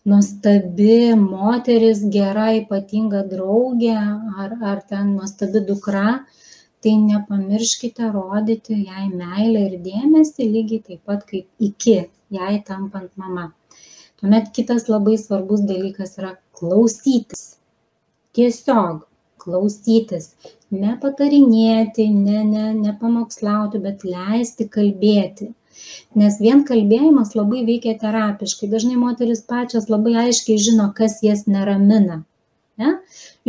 nuostabi moteris, gera, ypatinga draugė ar ten nuostabi dukra. Tai nepamirškite rodyti jai meilę ir dėmesį lygiai taip pat kaip iki jai tampant mama. Tuomet kitas labai svarbus dalykas yra klausytis. Tiesiog klausytis. Nepatarinėti, nepamokslauti, bet leisti kalbėti. Nes vien kalbėjimas labai veikia terapiškai. Dažnai moteris pačios labai aiškiai žino, kas jas neramina.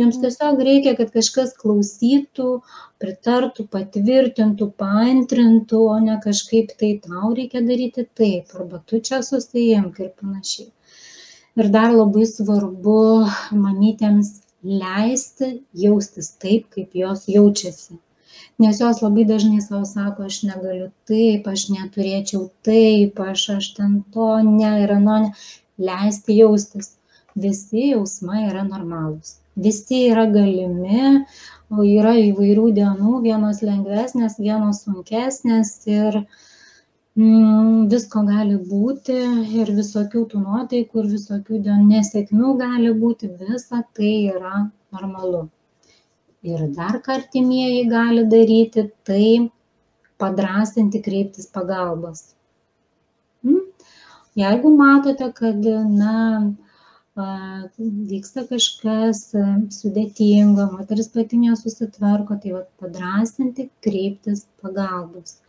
Jums tiesiog reikia, kad kažkas klausytų, pritartų, patvirtintų, paantrintų, o ne kažkaip tai tau reikia daryti taip, arba tu čia susiimk ir panašiai. Ir dar labai svarbu mamytėms leisti jaustis taip, kaip jos jaučiasi. Nes jos labai dažnai savo sako, aš negaliu taip, aš neturėčiau taip, aš ten to, ne, ir ano, ne. Leisti jaustis. Visi jausmai yra normalūs. Visi yra galimi, o yra įvairių dienų, vienos lengvesnės, vienos sunkesnės ir Visko gali būti ir visokių tų nuotaikų ir visokių nesėkmių gali būti, visa tai yra normalu. Ir dar ką artimieji gali daryti, tai padrąsinti kreiptis pagalbos. Jeigu matote, kad vyksta kažkas sudėtingo, moteris pati nesusitvarko, tai padrąsinti kreiptis pagalbos.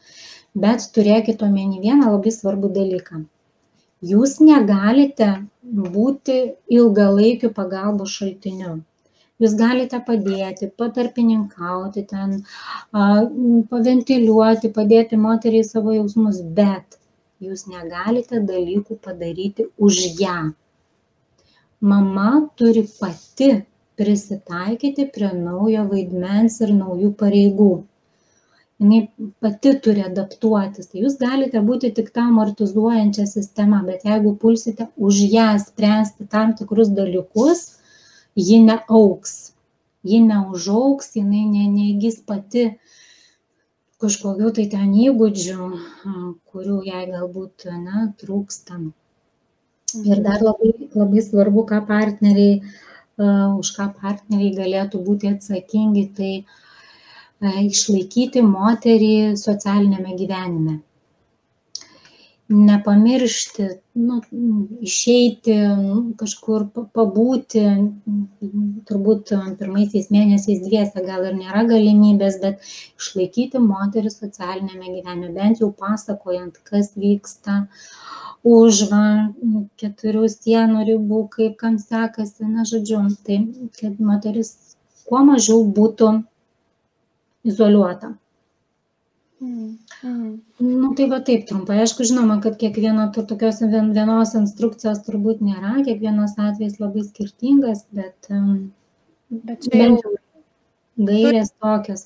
Bet turėkite omeny vieną labai svarbų dalyką. Jūs negalite būti ilgalaikiu pagalbos šaltiniu. Jūs galite padėti, patarpininkauti, paventiliuoti, padėti moteriai savo jausmus, bet jūs negalite dalykų padaryti už ją. Mama turi pati prisitaikyti prie naujo vaidmens ir naujų pareigų. Jis pati turi adaptuotis. Tai jūs galite būti tik ta amortizuojančia sistema, bet jeigu pulsite už ją spręsti tam tikrus dalykus, ji neaugs, ji neužaugs, jinai neįgis pati kažkokių tai ten įgūdžių, kurių jai galbūt trūksta. Ir dar labai svarbu, už ką partneriai galėtų būti atsakingi, tai išlaikyti moterį socialinėme gyvenime. Nepamiršti, išeiti, kažkur pabūti, turbūt pirmaisiais mėnesiais dviese gal ir nėra galimybės, bet išlaikyti moterį socialinėme gyvenime, bent jau pasakojant, kas vyksta už 4 sienų ribų, kaip kam sekasi, žodžiu, tai kad moteris kuo mažiau būtų izoliuota. Tai taip trumpai. Aišku, žinoma, kad kiekvieno tokios vienos instrukcijos turbūt nėra, kiekvienas atvejis labai skirtingas, bet čia jau gairės tokios.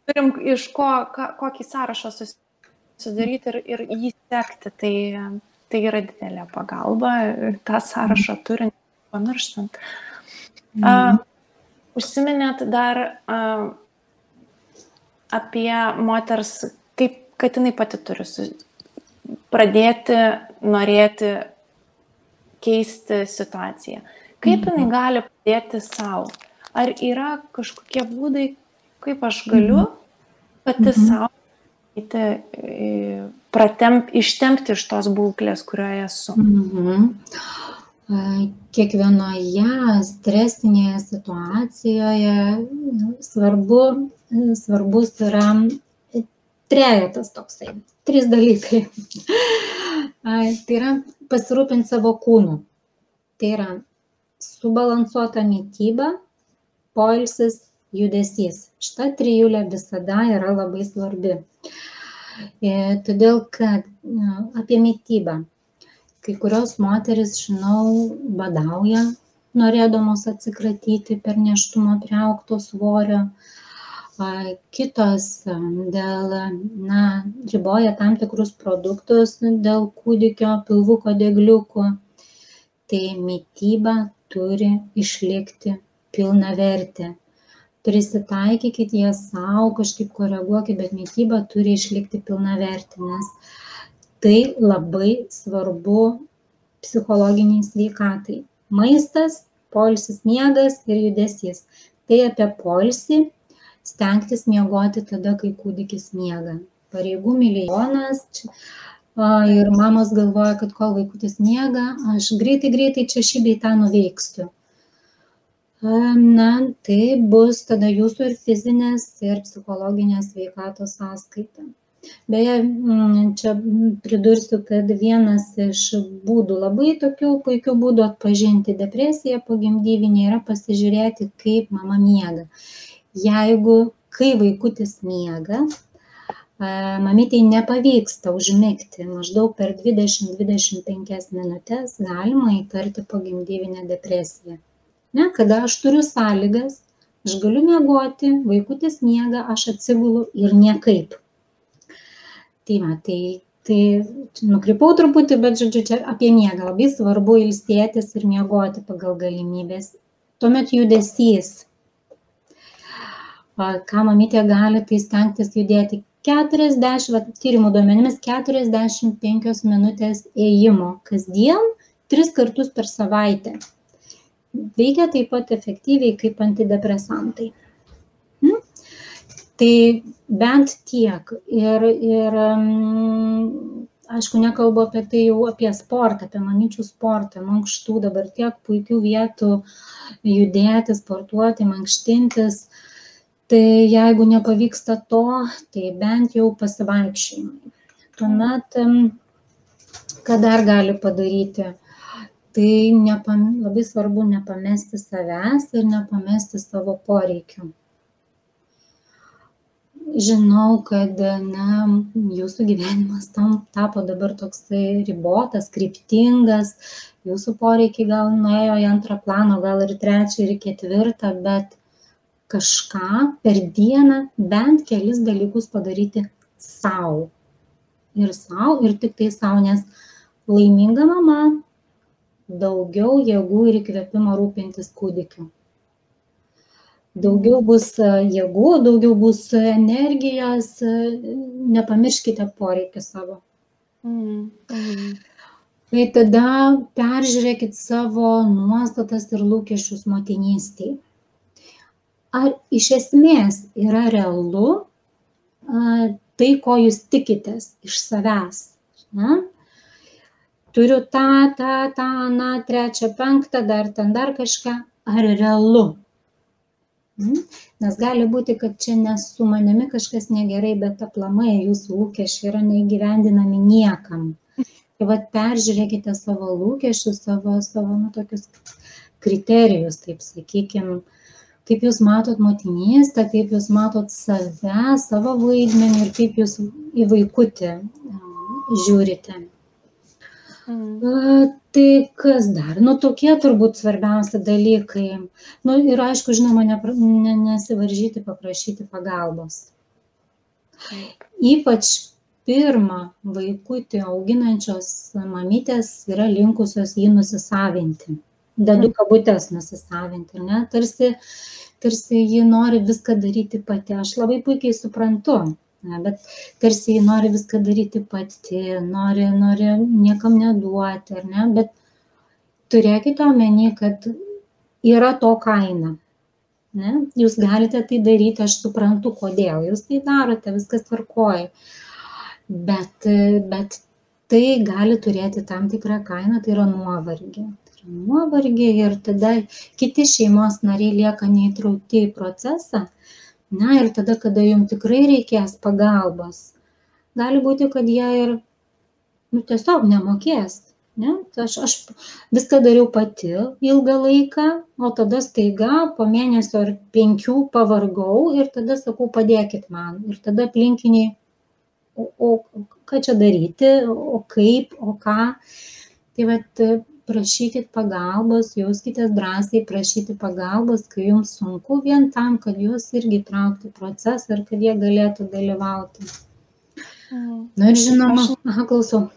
Turim iš kokį sąrašą susidaryti ir jį sekti, tai yra didelė pagalba, tą sąrašą turint, pamirštant. Užsiminėt dar apie moters, kad jinai pati turi pradėti, norėti keisti situaciją. Kaip jinai gali padėti savo? Ar yra kažkokie būdai, kaip aš galiu pati savo ištempti iš tos būklės, kurioje esu? Kiekvienoje stresinėje situacijoje svarbus yra trejetas toksai, 3 dalykai. Tai yra pasirūpinti savo kūnu. Tai yra subalansuota mityba, poilsis, judesys. Šita trijulė visada yra labai svarbi. Todėl, kad apie mitybą. Kai kurios moteris, žinau, badauja, norėdamos atsikratyti per nėštumą priaugto svorio. Kitos riboja tam tikrus produktus dėl kūdikio pilvuko dėgliukų. Tai mityba turi išlikti pilnavertė. Prisitaikykit ją savo, kažkaip koreguokit, bet mityba turi išlikti pilnavertė, nes tai labai svarbu psichologiniai sveikatai. Maistas, poilsis, miegas ir judesys. Tai apie poilsį stengtis miegoti tada, kai kūdikis miega. Pareigų milijonas ir mamos galvoja, kad kol vaikutis miega, aš greitai čia šį bei tą nuveiksiu. Tai bus tada jūsų ir fizinės, ir psichologinės sveikatos sąskaita. Beje, čia pridursiu, kad vienas iš būdų, labai tokių puikių būdų atpažinti depresiją pogimdyvinę yra pasižiūrėti, kaip mama miega. Kai vaikutis miega, mamytei nepavyksta užmigti, maždaug per 20-25 minutės galima įtarti pogimdyvinę depresiją. Kada aš turiu sąlygas, aš galiu miegoti, vaikutis miega, aš atsigulu ir niekaip. Tai nukrypau truputį, bet žodžiu, čia apie miegą. Labai svarbu ilsėtis ir miegoti pagal galimybės. Tuomet judesys. Ką mamytė gali, tai stengtis judėti tyrimų duomenimis 45 minutės ėjimo kasdien 3 kartus per savaitę. Veikia taip pat efektyviai kaip antidepresantai. Tai bent tiek. Ir aišku, nekalbu apie tai jau apie sportą, apie mamyčių sportą, mankštų, dabar tiek puikių vietų judėti, sportuoti, mankštintis. Tai jeigu nepavyksta to, tai bent jau pasivaikščiojimai. Tuomet, ką dar gali padaryti? Tai labai svarbu nepamesti savęs ir nepamesti savo poreikių. Žinau, kad jūsų gyvenimas tapo dabar toksai ribotas, kryptingas, jūsų poreikiai gal nuėjo į antrą planą, gal ir trečią, ir ketvirtą, bet kažką per dieną bent kelis dalykus padaryti sau. Ir tik tai sau, nes laiminga mama daugiau jėgų ir įkvėpimo rūpintis kūdikiu. Daugiau bus jėgų, daugiau bus energijos, nepamirškite poreikį savo. Tai tada peržiūrėkit savo nuostatas ir lūkesčius motinystėje. Ar iš esmės yra realu tai, ko jūs tikitės iš savęs? Turiu tą, trečią, penktą, dar kažką. Ar realu? Nes gali būti, kad čia ne su manimi kažkas negerai, bet aplamai jūsų lūkesčiai yra neįgyvendinami niekam. Tai vat peržiūrėkite savo lūkesčius, savo tokius kriterijus, taip sakykime, kaip jūs matot motinystę, kaip jūs matot save, savo vaidmenį ir kaip jūs į vaikutį žiūrite. Tai kas dar? Tokie turbūt svarbiausi dalykai. Ir aišku, žinoma, nesivaržyti, paprašyti pagalbos. Ypač pirmą vaikutį auginančios mamytės yra linkusios jį nusisavinti. Dedu kabutės nusisavinti, ne? Tarsi ji nori viską daryti pati. Aš labai puikiai suprantu. Bet tarsi jį nori viską daryti pati, nori niekam neduoti, ar ne? Bet turėkite omeny, kad yra to kaina. Ne? Jūs galite tai daryti, aš suprantu, kodėl jūs tai darote, viskas tvarkoja. Bet tai gali turėti tam tikrą kainą, tai yra nuovargį. Ir tada kiti šeimos nariai lieka neįtraukti į procesą. Ir tada, kada jums tikrai reikės pagalbos, gali būti, kad jie ir tiesiog nemokės. Ne? Aš viską dariau pati ilgą laiką, o tada staiga po mėnesio ar 5 pavargau ir tada sakau, padėkit man. Ir tada aplinkiniai, o ką čia daryti, o kaip, o ką. Tai vat prašykit pagalbos, jauskitės drąsiai prašyti pagalbos, kai jums sunku, vien tam, kad jūs irgi traukti procesą ir kad jie galėtų dalyvauti. Ir žinoma, klausau.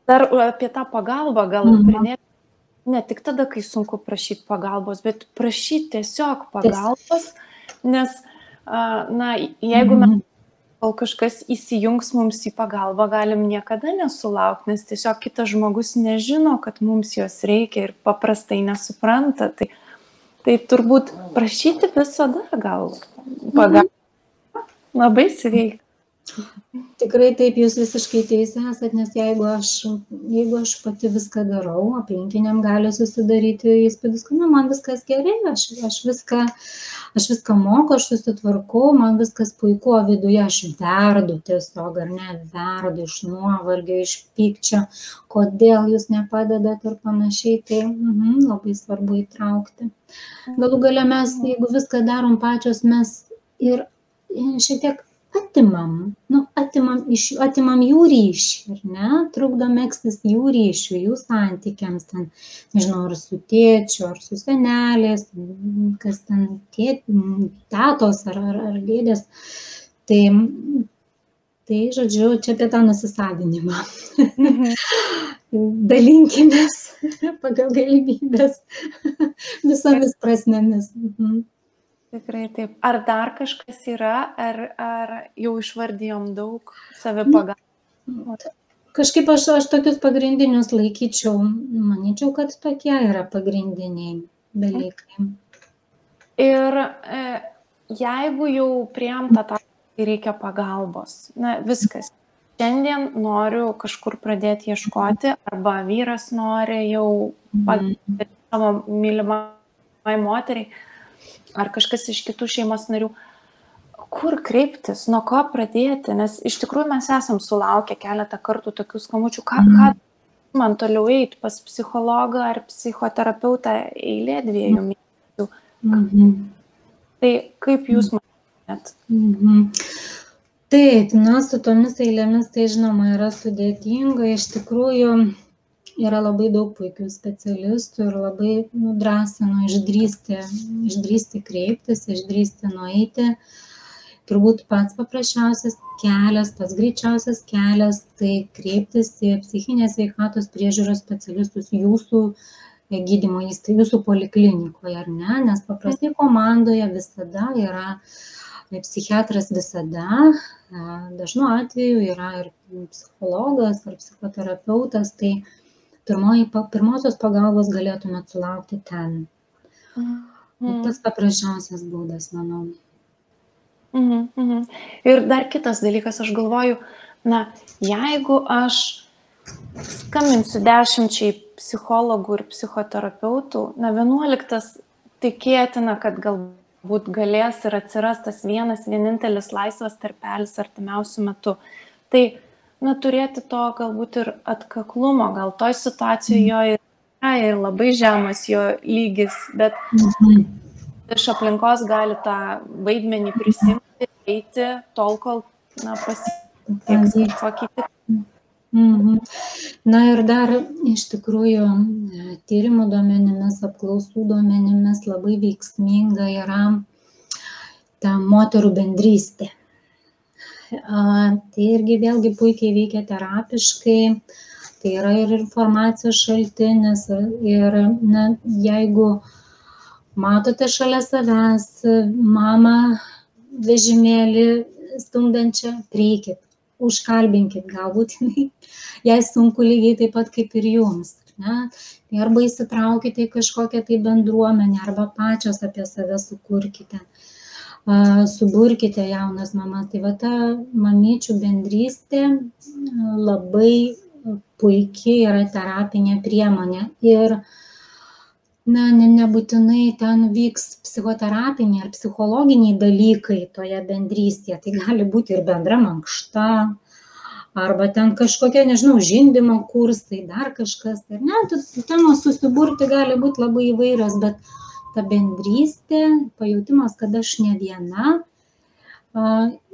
Dar apie tą pagalbą gal pridėti, ne tik tada, kai sunku prašyti pagalbos, bet prašyti tiesiog pagalbos, nes, jeigu mes kol kažkas įsijungs mums į pagalbą, galim niekada nesulaukti, nes tiesiog kitas žmogus nežino, kad mums jos reikia ir paprastai nesupranta. Tai turbūt prašyti visada gal pagalbą. Labai sveika. Tikrai taip, jūs visiškai teisė esat, nes jeigu aš pati viską darau, aplinkiniam gali susidaryti įspūdis, kad man viskas gerai, aš viską moku, aš susitvarkau, man viskas puiku, o viduje aš verdu tiesiog, ar ne, verdu iš nuovargio, iš pykčio, kodėl jūs nepadedat ir panašiai, tai labai svarbu įtraukti. Galų gale mes, jeigu viską darom pačios, mes ir šiek tiek atimam jų ryšį, ar ne? Trukdo megztis jų ryšių, jų santykiams, ten, nežinau, ar su tėčiu, ar su senelės, kas ten tetos ar dėdės. Tai, žodžiu, čia apie tą nusisavinimą. Tikrai taip. Ar dar kažkas yra, ar jau išvardijom daug savipagalbos? Kažkaip aš tokius pagrindinius laikyčiau, manyčiau, kad tokie yra pagrindiniai dalykai. Ir jeigu jau priėjom tą tašką, kai reikia pagalbos, na viskas, šiandien noriu kažkur pradėti ieškoti, arba vyras nori jau pagalboti savo mylimai moteriai, ar kažkas iš kitų šeimos narių, kur kreiptis, nuo ko pradėti, nes iš tikrųjų mes esam sulaukę keletą kartų tokių skambučių, ką man toliau eiti pas psichologą ar psichoterapeutą, eilė 2 mėnesių. Tai kaip jūs manėt? Taip, su tomis eilėmis tai žinoma yra sudėtinga, iš tikrųjų yra labai daug puikių specialistų ir labai drąsinu išdrįsti kreiptis, išdrįsti nueiti. Turbūt pats paprasčiausias kelias, pats greičiausias kelias, tai kreiptis į psichinės sveikatos priežiūros specialistus jūsų gydymo įstaigoje, jūsų poliklinikoje, ar ne? Nes paprastai komandoje visada yra psichiatras, visada, dažnu atveju yra ir psichologas ar psichoterapeutas, tai pirmosios pagalbos galėtumėt sulaukti ten. Tas paprasčiausias būdas, manau. Ir dar kitas dalykas, aš galvoju, jeigu aš skambinsiu 10 psichologų ir psichoterapeutų, 11 tikėtina, kad galbūt galės ir atsiras tas vienintelis laisvas tarpelis artimiausiu metu. Tai turėti to galbūt ir atkaklumo, gal toj situacijoje jo yra ir labai žemas jo lygis, bet iš aplinkos gali tą vaidmenį prisimti, eiti tol, kol pasieks kažkokį kitą. Na ir dar iš tikrųjų tyrimų duomenimis, apklausų duomenimis labai veiksminga yra ta moterų bendrystė. Tai irgi vėlgi puikiai veikia terapiškai, tai yra ir informacijos šaltinis ir jeigu matote šalia savęs mamą vežimėlį stumdančią, prieikit, užkalbinkit, galbūt jai sunku lygiai taip pat kaip ir jums. Arba įsitraukite į kažkokią tai bendruomenę, arba pačios apie save sukurkite, suburkite jaunas mamas. Tai ta mamyčių bendrystė labai puikiai yra terapinė priemonė ir nebūtinai ten vyks psichoterapiniai ar psichologiniai dalykai toje bendrystėje. Tai gali būti ir bendra mankšta, arba ten kažkokie, nežinau, žindymo kursai, dar kažkas. Temos susiburti gali būti labai įvairios, bet ta bendrystė, pajautimas, kad aš ne viena,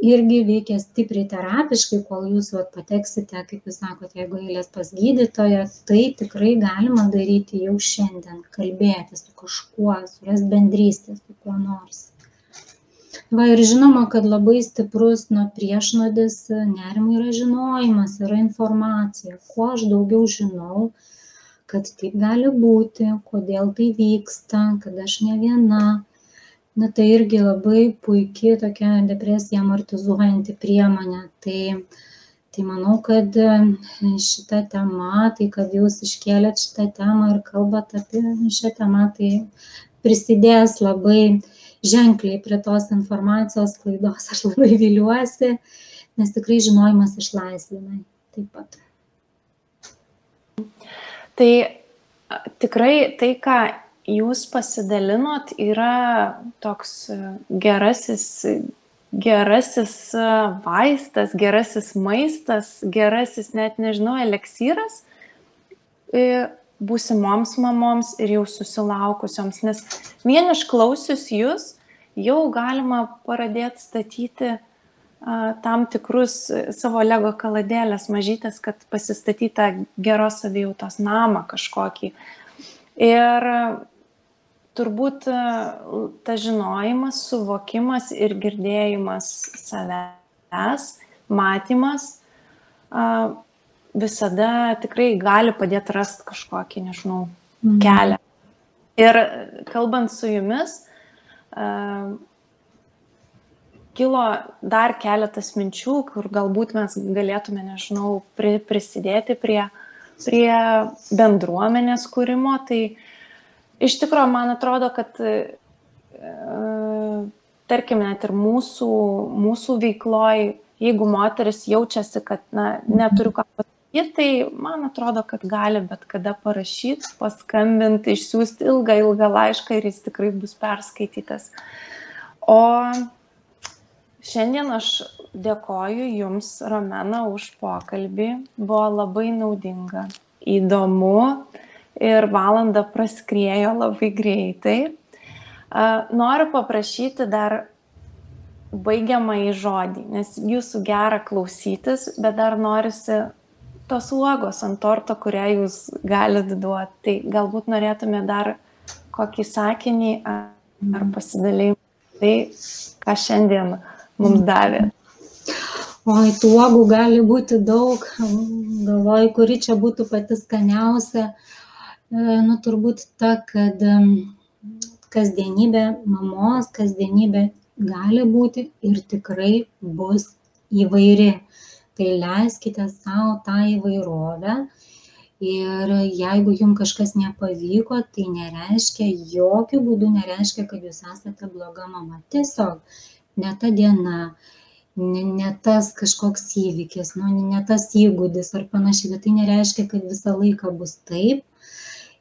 irgi veikia stipriai terapiškai, kol jūs pateksite, kaip jūs sakote, jeigu eilės pas gydytoją, tai tikrai galima daryti jau šiandien, kalbėti su kažkuo, surasti bendrystę su kuo nors. Ir žinoma, kad labai stiprus priešnodis nerimui yra žinojimas, yra informacija. Kuo aš daugiau žinau, kad taip gali būti, kodėl tai vyksta, kad aš ne viena, tai irgi labai puikiai tokia depresija amortizuojanti priemonė. Tai manau, kad šita tema, tai kad jūs iškėlėt šitą temą ir kalbat apie šią temą, tai prisidės labai ženkliai prie tos informacijos sklaidos. Aš labai viliuosi, nes tikrai žinojimas išlaisvina taip pat. Tai tikrai tai, ką jūs pasidalinot, yra toks gerasis vaistas, gerasis maistas, gerasis, net nežinau, eleksyras būsimoms mamoms ir jau susilaukusioms. Nes vien išklausius jūs, jau galima pradėti statyti tam tikrus savo lego kaladėlės mažytės, kad pasistatyti tą geros savijautos namą kažkokį. Ir turbūt ta žinojimas, suvokimas ir girdėjimas savęs, matymas visada tikrai gali padėti rasti kažkokį, nežinau, kelią. Ir kalbant su jumis, kilo dar keletas minčių, kur galbūt mes galėtume, nežinau, prisidėti prie bendruomenės kūrimo. Tai iš tikrųjų, man atrodo, kad tarkim, net ir mūsų veikloj, jeigu moteris jaučiasi, kad neturiu ką pasakyti, tai man atrodo, kad gali bet kada parašyti, paskambinti, išsiųsti ilgą laišką ir jis tikrai bus perskaitytas. O šiandien aš dėkoju Jums, Romena, už pokalbį. Buvo labai naudinga, įdomu ir valanda praskriejo labai greitai. Noriu paprašyti dar baigiamąjį žodį, nes Jūsų gera klausytis, bet dar norisi tos uogos ant torto, kurią Jūs galite duoti. Tai galbūt norėtume dar kokį sakinį ar pasidalymą. Tai, ką šiandien mums davė. Oi, tų uogų gali būti daug. Galvoju, kuri čia būtų pati skaniausia. Turbūt ta, kad kasdienybė mamos, kasdienybė gali būti ir tikrai bus įvairi. Tai leiskite savo tą įvairovę ir jeigu jums kažkas nepavyko, tai nereiškia, jokių būdų nereiškia, kad jūs esate bloga mama. Tiesiog ne ta diena, ne tas kažkoks įvykis, ne tas įgūdis ar panašiai, bet tai nereiškia, kad visą laiką bus taip.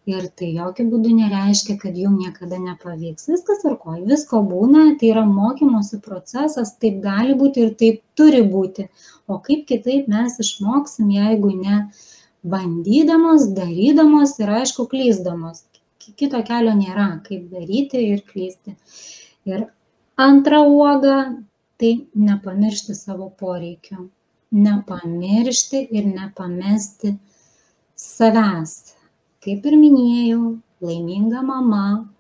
Ir tai jokių būdų nereiškia, kad jums niekada nepavyks. Viskas tvarkoj, visko būna, tai yra mokymosi procesas, taip gali būti ir taip turi būti. O kaip kitaip mes išmoksim, jeigu ne bandydamos, darydamos ir aišku klysdamos. Kito kelio nėra, kaip daryti ir klysti. Ir antra uoga, tai nepamiršti savo poreikių. Nepamiršti ir nepamesti savęs. Kaip ir minėjau, laiminga mama,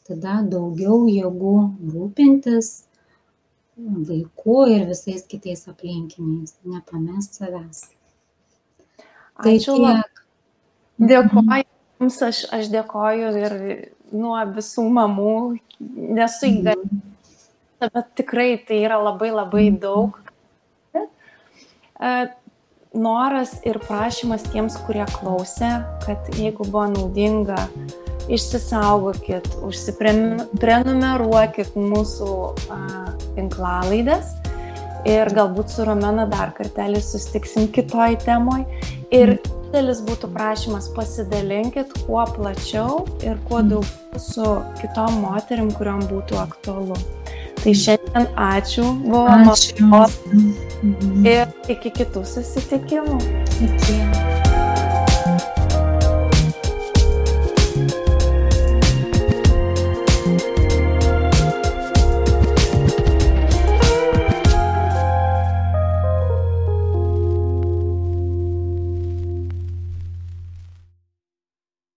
tada daugiau jėgų rūpintis vaiku ir visais kitais aplinkiniais. Nepamest savęs. Ačiū labai. Dėkoju Jums, aš dėkoju ir nuo visų mamų, nesu įgalinta, bet tikrai tai yra labai daug. Noras ir prašymas tiems, kurie klausė, kad jeigu buvo naudinga, išsisaugokit, užsiprenumeruokit mūsų tinklalaides ir galbūt su Romena dar kartelį susitiksim kitoj temoj. Ir didelis būtų prašymas, pasidalinkit kuo plačiau ir kuo daugiau su kitom moterim, kuriom būtų aktualu. Tai šiandien ačiū, buvo malonu ir iki kitų susitikimų. Iki.